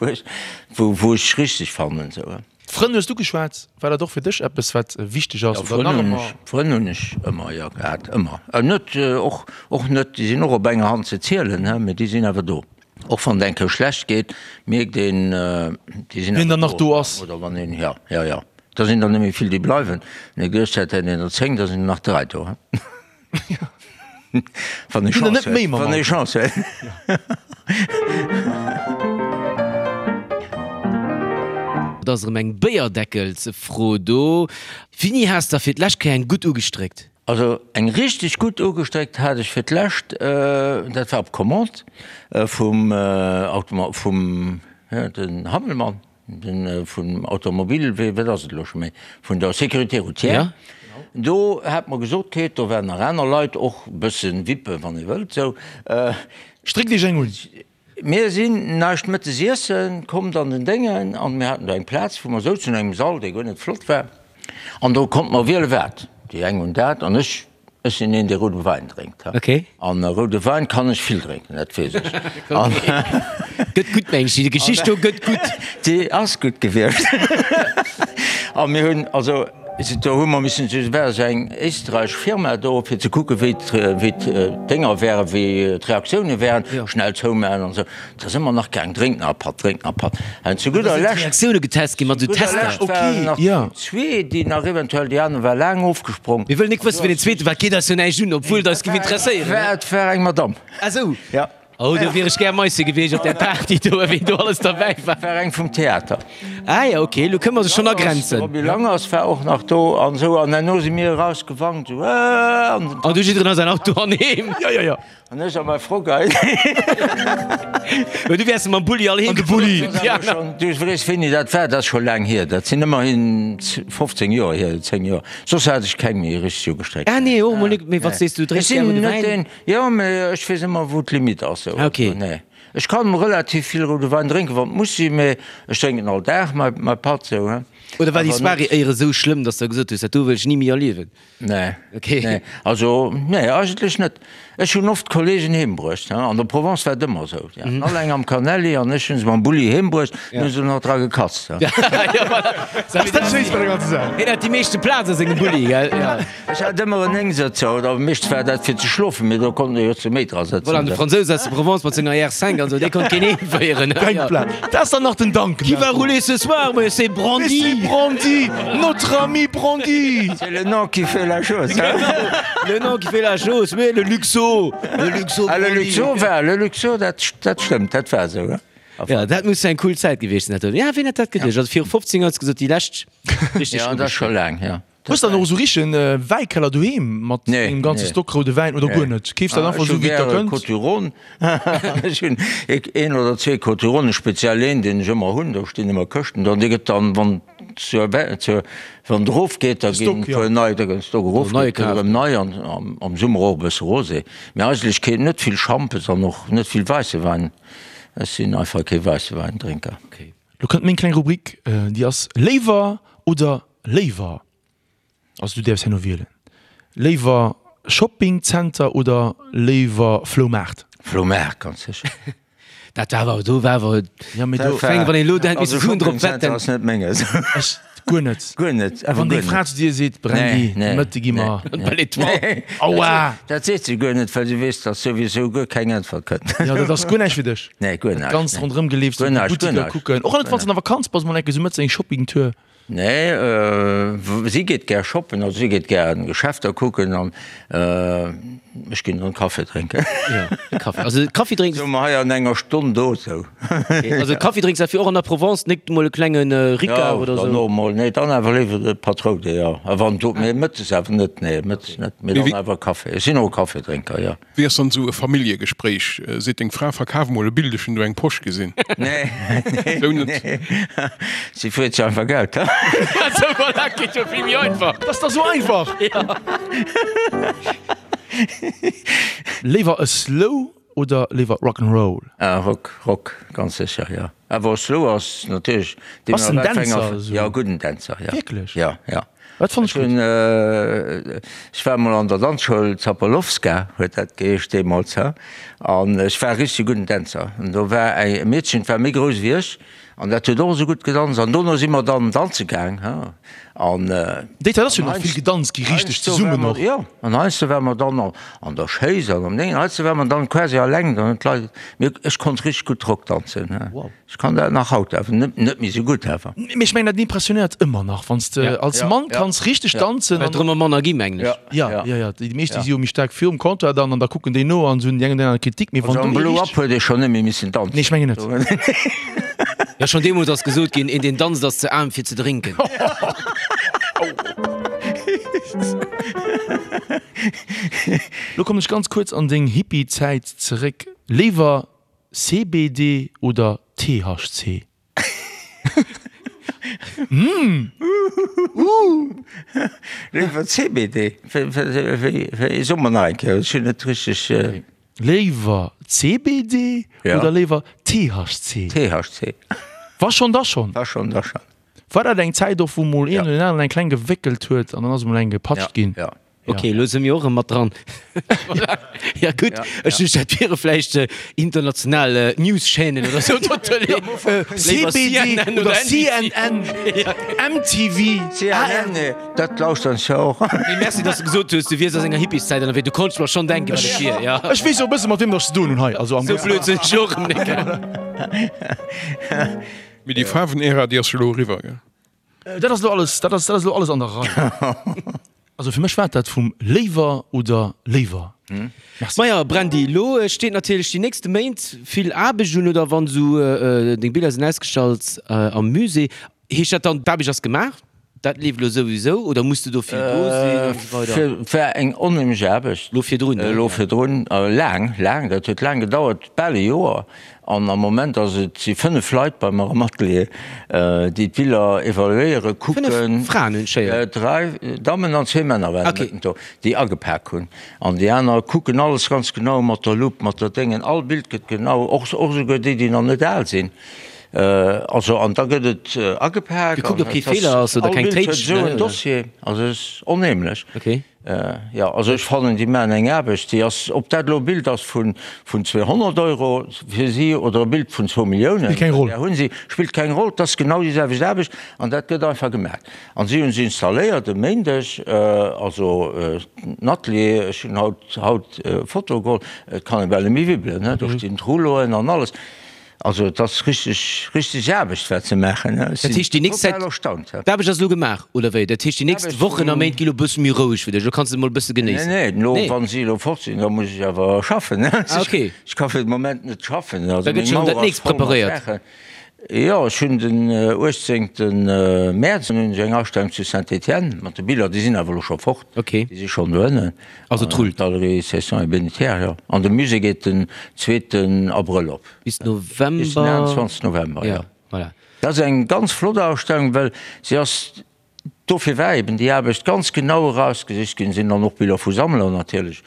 wou ech richteg fannen. D'Frënn hues du geschwat. War dat och fir dech eppes, wat wichteg ass? Jo, Frënn hunn ech, Frënn hunn ech ëmmer, jo, gehat, ëmmer. Net, och, och net, déi sinn och op enger Hand ze zielen, he, mee déi sinn awer do. Och wann et eng Kéier schlecht geet, mierkt een, déi sinn Wien dann nach do ass. Oder wann een, jo, jo, jo, da sinn der net méi vill, déi bleiwen. Mee gëscht hätt een der 10, da sinn der nach 3 do, he. Wann ee Chance huet. Wann ee Chance huet. Et ass erëm eng Béierdeckelsfro do. Wéini has der fir d'lescht Kéier eng gutt ugestréckt? Also eng richteg gutt ugestréckt hat ech fir d'lescht, dat war op Commande vum Automo, vum, den Hammelmann. Den vum Automobil, wéi, wat ass et elo scho méi, vun der Sécurité routière, do hat mer gesot kritt, do waren nach aner Leit, och e bëssen Vippe wann ee wëllt, esou. Stréckt Iech eng un! Mir sinn näischt mëttes iessen, kommt an den Déngen, an mir haten do eng Plaz, wou mer souzen, an engem Sall, dee guer net flott war, an do konnt mer wiele wat, déi eng hunn dat an ech Ech sinn een, dee roude Wäin drénkt. Okay. An roude Wäin kann ech vill drénken, dat weess ech. Gëtt gutt, meng ech. Déi Geschicht do gëtt gutt. Déi ass gutt gewiescht. A mir hunn, also do hu mer missen, et war esou eng éisträichesch Firma do, fir ze kucken, wéi d'Dénger wären, wéi d'Reaktioune wären, schnell zoumaachen an esou. Da si mer nach gaang, drénk nach e Patt, drénk nach e Patt. An zu gudder Lescht. Reaktioune getest ginn mat esou Tester. Ok, jo. Zwee, déi nach eventuell, déi aner war laang ofgesprong. Mir wëllen nik wëssen, wien den zweete war, geet eis jo näischt un, obwuel et eis géif interesséieren. Et war eng Madamm. Ah sou. Ja. Oh, do wier ech gär Meisse gewiescht op där Party do, wien do alles derbäi war. War eng vum Theater. Ah jo, ok, elo kënne mer se schonn agrenzen. De Roby Langers war och nach do an esou. An herno si mir erausgewankt, esou, Aah! An du jidderen a säin Auto an heem. Jo, jo, jo. An ech a mei Frock hei. Mä du wäers mam Bulli all heem An de Bulli. Du weess wéini dat war, dat ass scho laang hier, dat sinn ëmmerhin 15 Joer hier, 10 Joer. Soss hat ech keng méi richteg ugestréckt. Ah nee, och mol nik. Mee wat sees du, drénks gär roude Wäin? Jo, mee ech weess ëmmer wou d'Limite ass. Ah ok. Nee. Ech kann relativ vill roude Wäin drénken, wann et muss sinn, mee ech drénken all Dag mäi Patt sou, he. Oder war déi Soirée éiere sou schlëmm, dass der gesot hues, dat do wëll ech ni méi erliewen? Nee. Okay. Nee, also nee, eigentlech net. Ech hunn oft Kollegen heem bruecht, he. An der Provence war et ëmmer esou. Déi haten all eng am Canelli an ech hunn se mam Bulli heem bruecht, dann hu se nach dra gekatzt, he. Ja, voilà. Dat ass dat Schéinst bei der ganzer Saach. Hien hat déi meeschte Plaz a sengem Bulli, gell? Ja. Ech hat ëmmer en Néngsëtzer, oder meeschtens war dat fir ze schlofen, mee do konnt ee jo zu méi dra sëtzen. Voilà, an de Fransous aus der Provence mat senger R5 an esou, dee konnt keen heemféieren. Keng Plaz. Dat ass dann nach den Duncan. Qui va rouler ce soir? Mais c'est Brandy! Mais c'est Brandy! Notre ami Brandy! C'est le nom qui fait la chose, hein? Le nom qui fait la chose, mais le Luxo! Le Luxo Ah, le Brandy! Luxo war, le Luxo, dat, dat stëmmt, dat war esou, hein? Ja, dat muss eng cool Zäit gewiescht sinn, dat do. Ja, ween hätt dat geduecht? Also viru 15 Joer hues de gesot, déi lescht richteg Ja, dat ass scho laang, ja. Hues dann och esou richtegen Wäikeller doheem mat engem ganze Stock roude Wäin oder guer net? Keefs dat einfach esou wéi et der kënnt? Ech hu gäre Côtes du Rhône. Ech hunn een oder zwee Côtes du Rhône, speziell een deen ech ëmmer hunn, do stinn ëmmer Këschten dran, dee gëtt dann wann zur zur wann et erofgeet, da ginn e puer nei, da gëtt den Stock erofgeet, gëtt erëm nei an am Summer och e bësse Rosé. Mee eigentlech keen, net vill Schampes an och net vill wäisse Wäin. Ech sinn einfach kee wäisse Wäindrénker. Lo kënnt meng kleng Rubrik, déi ass Léiwer oder Léiwer. Also du däerfs herno wielen. Léiwer Shoppingzenter oder léiwer Floumaart? Floumaart, ganz sécher. Dat war awer, do war awer, Ja, mee do, Feng, wann een elo hätt Also misse Suen drop Shoppingzenter wetten. ass net menges. ech guer net. Guer net, awer Wann guer deng Fra net. zu dir seet, Brandy, Nee, nee, Mëtte gi mer. nee. Belle Étoile. Nee, Aua! dat seet se guer net, well se weess, datt souwisou guer keng Äntwert kënnt. Ja, dat ass guer näischt fir dech. Nee, guer Dat näischt, Ganzt nee. ronderëm geleefs, Guer duerch näischt, guer d'Buttiker näischt. kucken. Och net, wann s de an der Vakanz bass, mol eng Kéier sou mëttes eng Shoppingtour. Nee, si geet gär shoppen, also si geet gär an Geschäfter kucken an ech ginn dann Kaffi drénken. Jo, Kaffi. Also Kaffi drénks. Soe mer hei an enger Stonn do sou. Also Kaffi drénks derfir och an der Provence, net mol e klenge Ricard oder sou? Jo, dann och mol, nee, dann awer léiwer de Patroude, jo. A wann do, mee mëttes awer net, nee, mëttes net, mee dann awer Kaffi. Ech sinn och e Kaffidrénker, jo. Wéi ass dann esou e Familljegespréich? Seet deng Fra, verkaf mol e Bild, ech hunn do eng Posch gesinn. Nee, nee, Sou net. nee. Si freet sech einfach Geld. Sou, voilà, geet jo vill méi einfach. Dat ass da sou einfach! Léiwer e Slow oder léiwer Rock 'n' Roll? Ah, Rock, Rock, ganz sécher, jo. Awer Slow ass natierlech. Bass en Dänzer esou? Jo, gudden Dänzer, jo. Wierklech? Jo, jo. Dat fannt ech gutt. Ech war emol an der Danzschoul, Zapolowska huet dat geheescht deemools, he, an ech war e richtege gudden Dänzer. An do war e Meedchen, dat war méi grouss wéi ech, an dat huet och esou gutt gedanzt. An dono si mer dann danze gaang, he, an. Déi Zäit ass jo nach vill gedanzt gi, richteg zesummen och. Jo, an heiansdo ware mer dann an der Schéiss an am Déngen, heiansdo ware mer dann quasi alleng, dann hunn d'Leit, mee ech konnt richteg gutt Rock danzen, he. Ech kann dat nach haut awer net, net méi sou gutt awer. Mee ech mengen dat impressionéiert ëmmer nach, wann s de als Mann kanns richteg danzen. Well et drëm ëm manner gi mengen ech. Ja, ja, ja, déi meescht déi si jo méi staark virum Comptoir dann an da kucken déi no an hunn déi eng oder aner Kritik, mee wann Also am du Blow richteg. Up huet ee schonn net méi missen danzen. Nee, ech mengen net. Jo, schonn deemools ass gesot ginn, een deen danzt ass ze aarm fir ze drénken. Lo kommen ech ganz kuerz an deng Hippie-Zäit zeréck. Léiwer CBD oder THC? Mmh! Léiwer CBD? Wéi, so mol nach eng Kéier, ech hunn net richteg. Léiwer CBD oder léiwer THC? THC. Wa schonn, da schonn. Wa schonn, da schonn. War dat eng Zäit och, wou mol een oder deen aneren eng kleng gewéckelt huet an dann ass emol eng gepatscht ginn? Ja. Ok, elo si mir och erëm mat dran. Ja gutt, ech duecht dat wiere vläicht international News-Chaînen oder sou. CBD oder CNN, MTV, CNN, dat lauschteren ech jo och. Mee merci, dass de gesot hues, du wiers a senger Hippieszäit ënnerwee. Du konntst mer schonn denken, wat et wier, ja. Ech weess jo e bësse mat wiem datt ech ze doen hunn hei. Also am Sou blöd sinn ech och erëm net, gell. Mee déi Faarwen-Ära, déi ass jo elo eriwwer, gell? Dat ass elo alles, dat ass, dat ass elo alles an der Rei. Also fir mech war dat vum léiwer oder léiwer. Merci. Maja Brandy, elo steet natierlech déi nächste Méint vill Aarbecht un, oder wann esou deng Biller sinn ausgestallt am Musée, heescht dat dann d'Aarbecht ass gemaach? Dat leeft elo souwisou oder muss de do vill do sinn an esou weider? War eng onheemlech Aarbecht. Elo virdrun, ne? Elo virdrun, laang, laang, dat huet laang gedauert, bal e Joer. An am Moment ass et, si 5 Leit bei mer am Atelier, déi d'Biller evaluéieren, kucken. 5 Fraen hunn ech héieren. 3 Dammen an zwee Männer waren okay. do, déi agepak hunn. An déi aner kucken alles ganz genau mat der Lupp, mat der Déngen. All Bild gëtt genau, och, och esouguer déi, déi nach net al sinn. Also, an da gëtt et agepak. Gekuckt, ob kee Feeler ass oder keng Téitsch. Esou en Dossier, also et ass onheemlech. Okay. Jo, also ech fannen, déi maachen eng Aarbecht, déi ass, ob dat elo e Bild ass vun 200 Euro fir si oder e Bild vun zwou Milliounen, Spillt keng Roll. där hunn si, spillt keng Roll, et ass genau déi selwecht Aarbecht an dat gëtt einfach gemaach. An si hunn se installéiert e Méindeg, also den Atelier, ech hunn haut, haut Fotoe geholl, et kann ee bal net méi wibbelen, do stinn d'Rouleauen an alles. Also et ass richteg, richteg Aarbecht wat se maachen. Ech Dat heescht déi nächst Zäit, total erstaunt. d'Aarbecht ass elo gemaach, oder wéi? Dat heescht déi nächst Wochen a Méint gi lo e bësse méi roueg fir dech, elo kanns de mol e bësse genéissen? Nee, nee, elo wa si elo fort sinn, da muss ech awer schaffen. Ah okay. Ech ka fir de Moment net schaffen. Da Also gëtt meng schonn dat Mauer ass nächst voll mat preparéiert. Saachen. Jo, ech hunn den 18 Mäerz hunn ech eng Astellung zu Saint-Étienne mat de Biller, déi sinn awer elo scho fort. Okay. Déi si schonn doënnen. Also et rullt. Galerie Cesson et Bénétière, jo. An de Musée geet den zweeten Abrëll op. Bis November. Bis den 21 November, jo. Voilà. Dat ass eng ganz flott Ausstellung, well se ass, dofir war eben déi Aarbecht ganz genau erausgesicht ginn, sinn dann och Biller vu Sammler natierlech,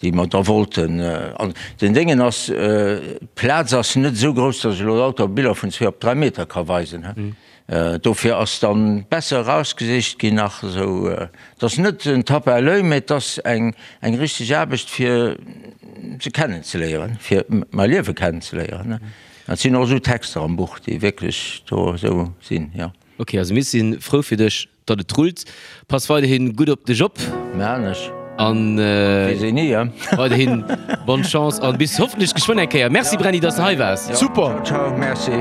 déi mer da wollten. An den Déngen ass, d'Plaz ass net esou grouss, datt ech elo lauter Biller vun zwee op dräi Meter ka weisen. Dofir ass dann besser erausgesicht ginn nach esou. Et ass net en Tape à l'oeil, mä et ass eng eng richteg Aarbecht fir se kennenzeléieren, fir mäi Liewe kennenzeléieren. Et sinn och esou Texter am Buch, déi wierklech do esou sinn, jo. Ok, also mir si frou fir dech, datt et rullt. Pass weiderhin gutt op dech op. Maan ech. An Weess een ni, he? weiderhin bonne Chance an bis hoffentlech geschwënn eng Kéier. Merci Brenny, dass de hei waars. Super! Ciao, ciao, merci.